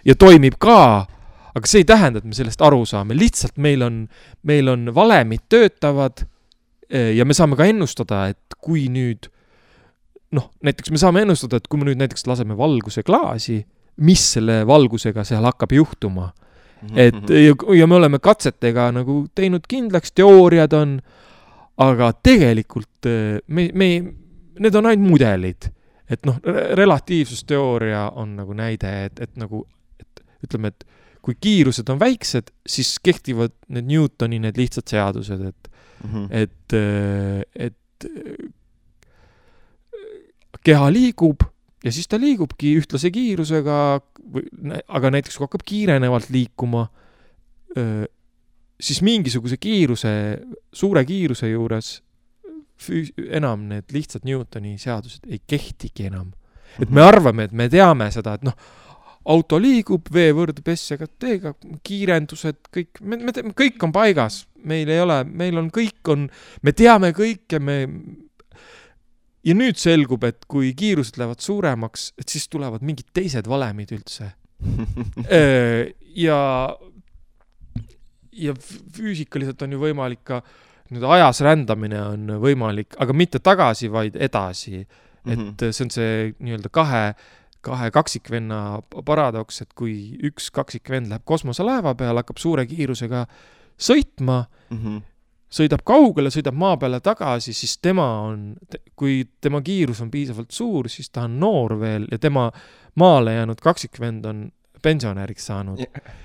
ja toimib ka, aga see ei tähenda, et me sellest aru saame. Lihtsalt meil on valemid töötavad ja me saame ka ennustada, et kui nüüd, näiteks me saame ennustada, et kui me nüüd näiteks laseme valguse klaasi, mis selle valgusega seal hakkab juhtuma. Ja me oleme katsetega nagu teinud kindlaks, teooriad on, aga tegelikult need on ainult mudelid. Et relatiivsusteooria on nagu näide, et ütleme, et kui kiirused on väiksed, siis kehtivad need Newtoni need lihtsad seadused, et keha liigub ja siis ta liigubki ühtlase kiirusega, aga näiteks kui hakkab kiirenevalt liikuma, siis mingisuguse suure kiiruse juures enam need lihtsad Newtoni seadused ei kehtigi enam. Et me arvame, et me teame seda, et auto liigub, veevõrd SCT-ga, kiirendused, kõik on paigas. Meil ei ole, me teame kõike, ja nüüd selgub, et kui kiirused lähevad suuremaks, et siis tulevad mingid teised valemid üldse. ja füüsikaliselt on ju võimalik ka, nüüd ajas rändamine on võimalik, aga mitte tagasi, vaid edasi. Et see on see nii-öelda kahe kaksikvenna paradoks, et kui üks kaksikvend läheb kosmoselaeva peale, hakkab suure kiirusega sõitma, sõidab kaugele, sõidab maa peale tagasi, siis kui tema kiirus on piisavalt suur, siis ta on noor veel ja tema maale jäänud kaksikvend on pensionäriks saanud.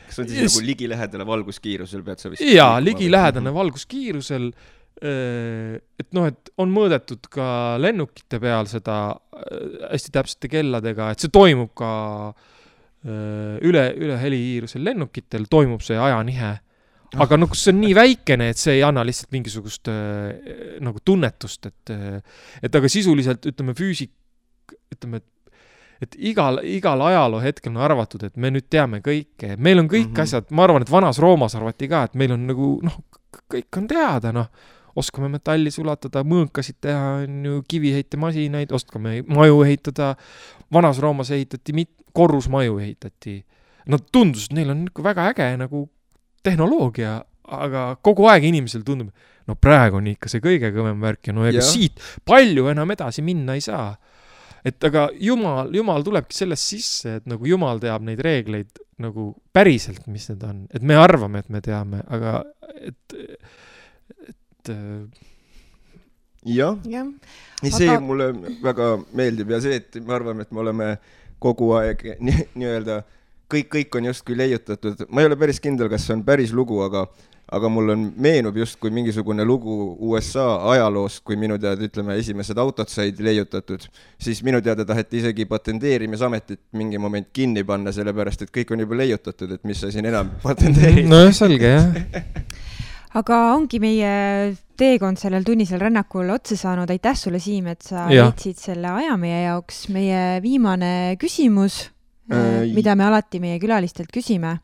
Kas on siis nagu ligilähedane valguskiirusel pead sa vist? Jaa, ligilähedane valguskiirusel, et et on mõõdetud ka lennukite peal seda hästi täpsete kelladega, et see toimub ka üle helikiirusel lennukitel, toimub see ajanihe. Aga see on nii väikene, et see ei anna lihtsalt mingisugust nagu tunnetust, et aga sisuliselt, ütleme, et igal ajaloo hetkel on arvatud, et me nüüd teame kõike. Meil on kõik asjad, ma arvan, et vanas Roomas arvati ka, et meil on nagu, kõik on teada, oskame metalli sulatada, mõõkasid teha, kiviheitemasinaid, oskame maju ehitada. Vanas Roomas ehitati, korrusmaju ehitati. Tundus, et neil on väga äge nagu tehnoloogia, aga kogu aeg inimesel tundub, praegu on ikka see kõige kõvem värk ja siit palju enam edasi minna ei saa. Et aga Jumal tulebki sellest sisse, et nagu Jumal teab neid reegleid nagu päriselt, mis need on. Et me arvame, et me teame, aga jah. See mulle väga meeldib ja see, et me arvame, et me oleme kogu aeg nii-öelda kõik on just kui leiutatud. Ma ei ole päris kindel, kas see on päris lugu, aga mul meenub just kui mingisugune lugu USA ajaloost, kui minu teada, ütleme, esimesed autod said leiutatud, siis minu teada taheti isegi patenteerimisametit mingi moment kinni panna, sellepärast, et kõik on juba leiutatud, et mis sa siin enam patenteerid. No selge, jah. Aga ongi meie teekond sellel tunnisel rännakul otsa saanud. Aitäh sulle, Siim, et sa leidsid selle aja meie jaoks. Meie viimane küsimus, mida me alati meie külalistelt küsime,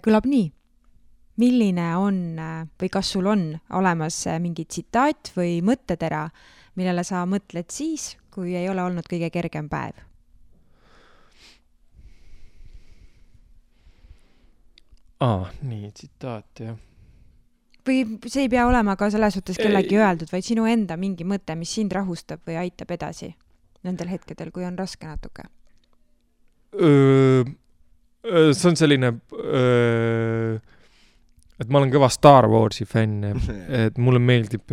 kõlab nii. Milline on või kas sul on olemas mingi tsitaat või mõttetera, millele sa mõtled siis, kui ei ole olnud kõige kergem päev? Nii, tsitaat, jah. Või see ei pea olema ka selles suhtes kellegi öeldud, vaid sinu enda mingi mõte, mis sind rahustab või aitab edasi nendel hetkedel, kui on raske natuke? See on selline... et ma olen kõva Star Warsi fänn, et mulle meeldib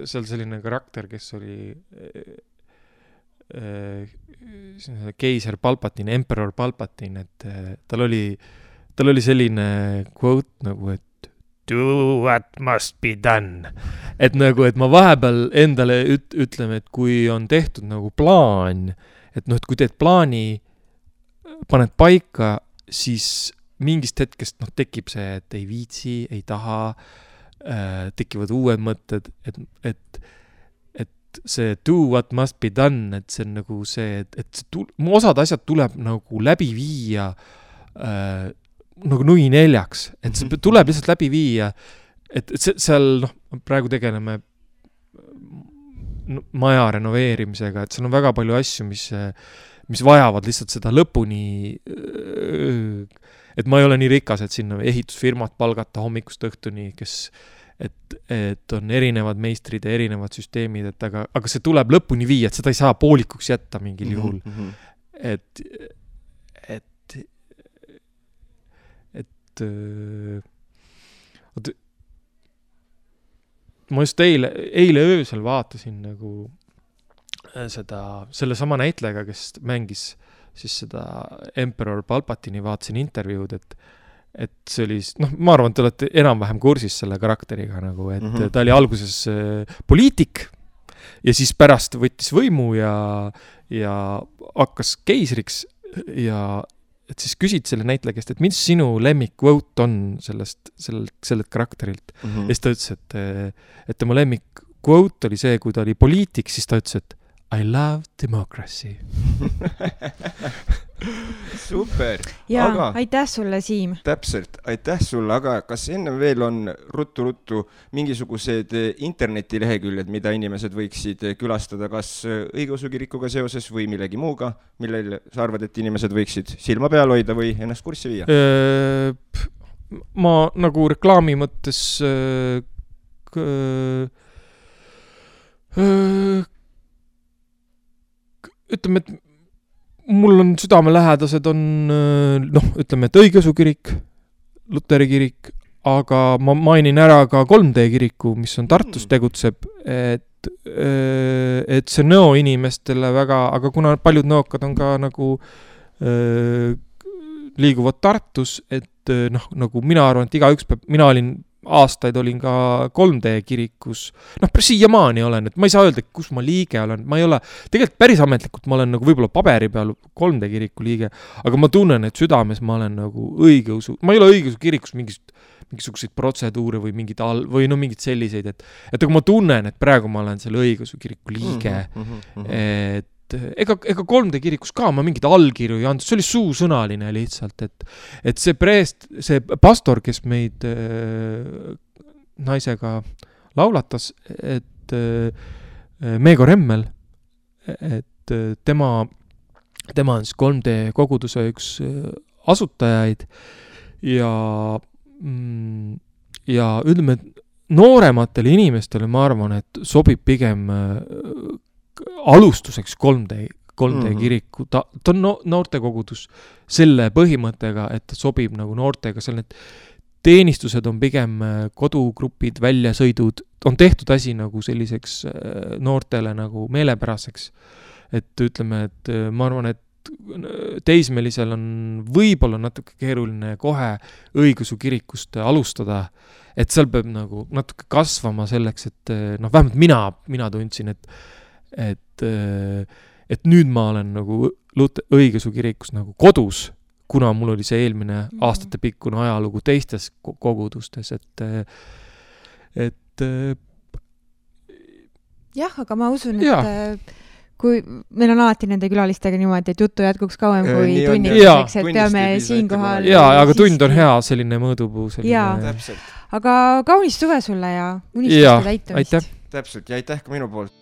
seal selline karakter, kes oli keiser Palpatine, Emperor Palpatine, et tal oli selline quote nagu, et do what must be done. Et nagu, et ma vahepeal endale ütleme, et kui on tehtud nagu plaan, et et kui teed plaani, paned paika, siis mingist hetkest tekib see, et ei viitsi, ei taha, tekivad uued mõtted, et see do what must be done, et see on nagu see, et osad asjad tuleb nagu läbi viia nagu nui neljaks, et see tuleb lihtsalt läbi viia, et seal praegu tegeleme maja renoveerimisega, et seal on väga palju asju, mis vajavad lihtsalt seda lõpuni, et ma ei ole nii rikas, et sinna ehitusfirmat palgata hommikust õhtuni, et on erinevad meistrid ja erinevad süsteemid, aga see tuleb lõpuni viia, et seda ei saa poolikuks jätta mingil juhul. Ma just eile öösel vaatasin nagu selle sama näitlejaga, kes mängis siis seda Emperor Palpatini, vaatasin intervjuud, et see oli, ma arvan, et te olete enam-vähem kursis selle karakteriga nagu, et ta oli alguses poliitik ja siis pärast võttis võimu ja hakkas keisriks ja et siis küsid selle näitleja käest, et mis sinu lemmik quote on sellelt karakterilt. Ja siis ta ütles, et tema lemmik quote oli see, kui ta oli poliitik, siis ta ütles, et I love democracy. Super. Ja aitäh sulle, Siim. Täpselt, aitäh sulle, aga kas enne veel on ruttu mingisugused internetileheküljed, mida inimesed võiksid külastada, kas õigeusu kirikuga seoses või millegi muuga, millel sa arvad, et inimesed võiksid silma peal hoida või ennast kurssi viia? Ma nagu reklaami mõttes ütleme, et mul on südamelähedased on, ütleme, et õigeusu kirik, Luteri kirik, aga ma mainin ära ka 3D kiriku, mis on Tartus tegutseb, et see nõo inimestele väga, aga kuna paljud nõokad on ka nagu liiguvad Tartus, et nagu mina arvan, et igaüks peab, mina aastaid olin ka 3D kirikus, siiamaani olen, et ma ei saa öelda, kus ma liige olen, ma ei ole, tegelikult päris ametlikult ma olen nagu võib-olla paberi peal 3D kiriku liige, aga ma tunnen, et südames ma olen nagu õigeusu, ma ei ole õigeusu kirikus mingisuguseid protseduure või või mingid selliseid, et aga ma tunnen, et praegu ma olen selle õigeusu kiriku liige, et ega 3D kirikus ka ma mingid allkirju ei andnud, see oli suusõnaline lihtsalt, et see pastor, kes meid naisega laulatas, et Meego Remmel, et tema on siis 3D koguduse üks asutajaid ja ütleme, et noorematele inimestele ma arvan, et sobib pigem alustuseks 3D kiriku, ta on noortekogudus selle põhimõttega, et ta sobib nagu noortega, seal need teenistused on pigem kodugrupid, väljasõidud, on tehtud asi nagu selliseks noortele nagu meelepäraseks, et ütleme, et ma arvan, et teismelisel on võib-olla natuke keeruline kohe õigeusu kirikust alustada, et seal peab nagu natuke kasvama selleks, et vähemalt mina tundsin, et nüüd ma olen nagu õigeusu kirikus nagu kodus, kuna mul oli see eelmine aastate pikkune ajalugu teistes kogudustes, et jah, aga ma usun, et kui meil on alati nende külalistega niimoodi, et juttu jätkuks kauem kui tunnistuseks, et peame siinkohal aga tund on hea selline mõõdupuu selline. Aga kaunist suve sulle ja unistuste täitumist. Aitäh. Täpselt ja aitäh ka minu poolt.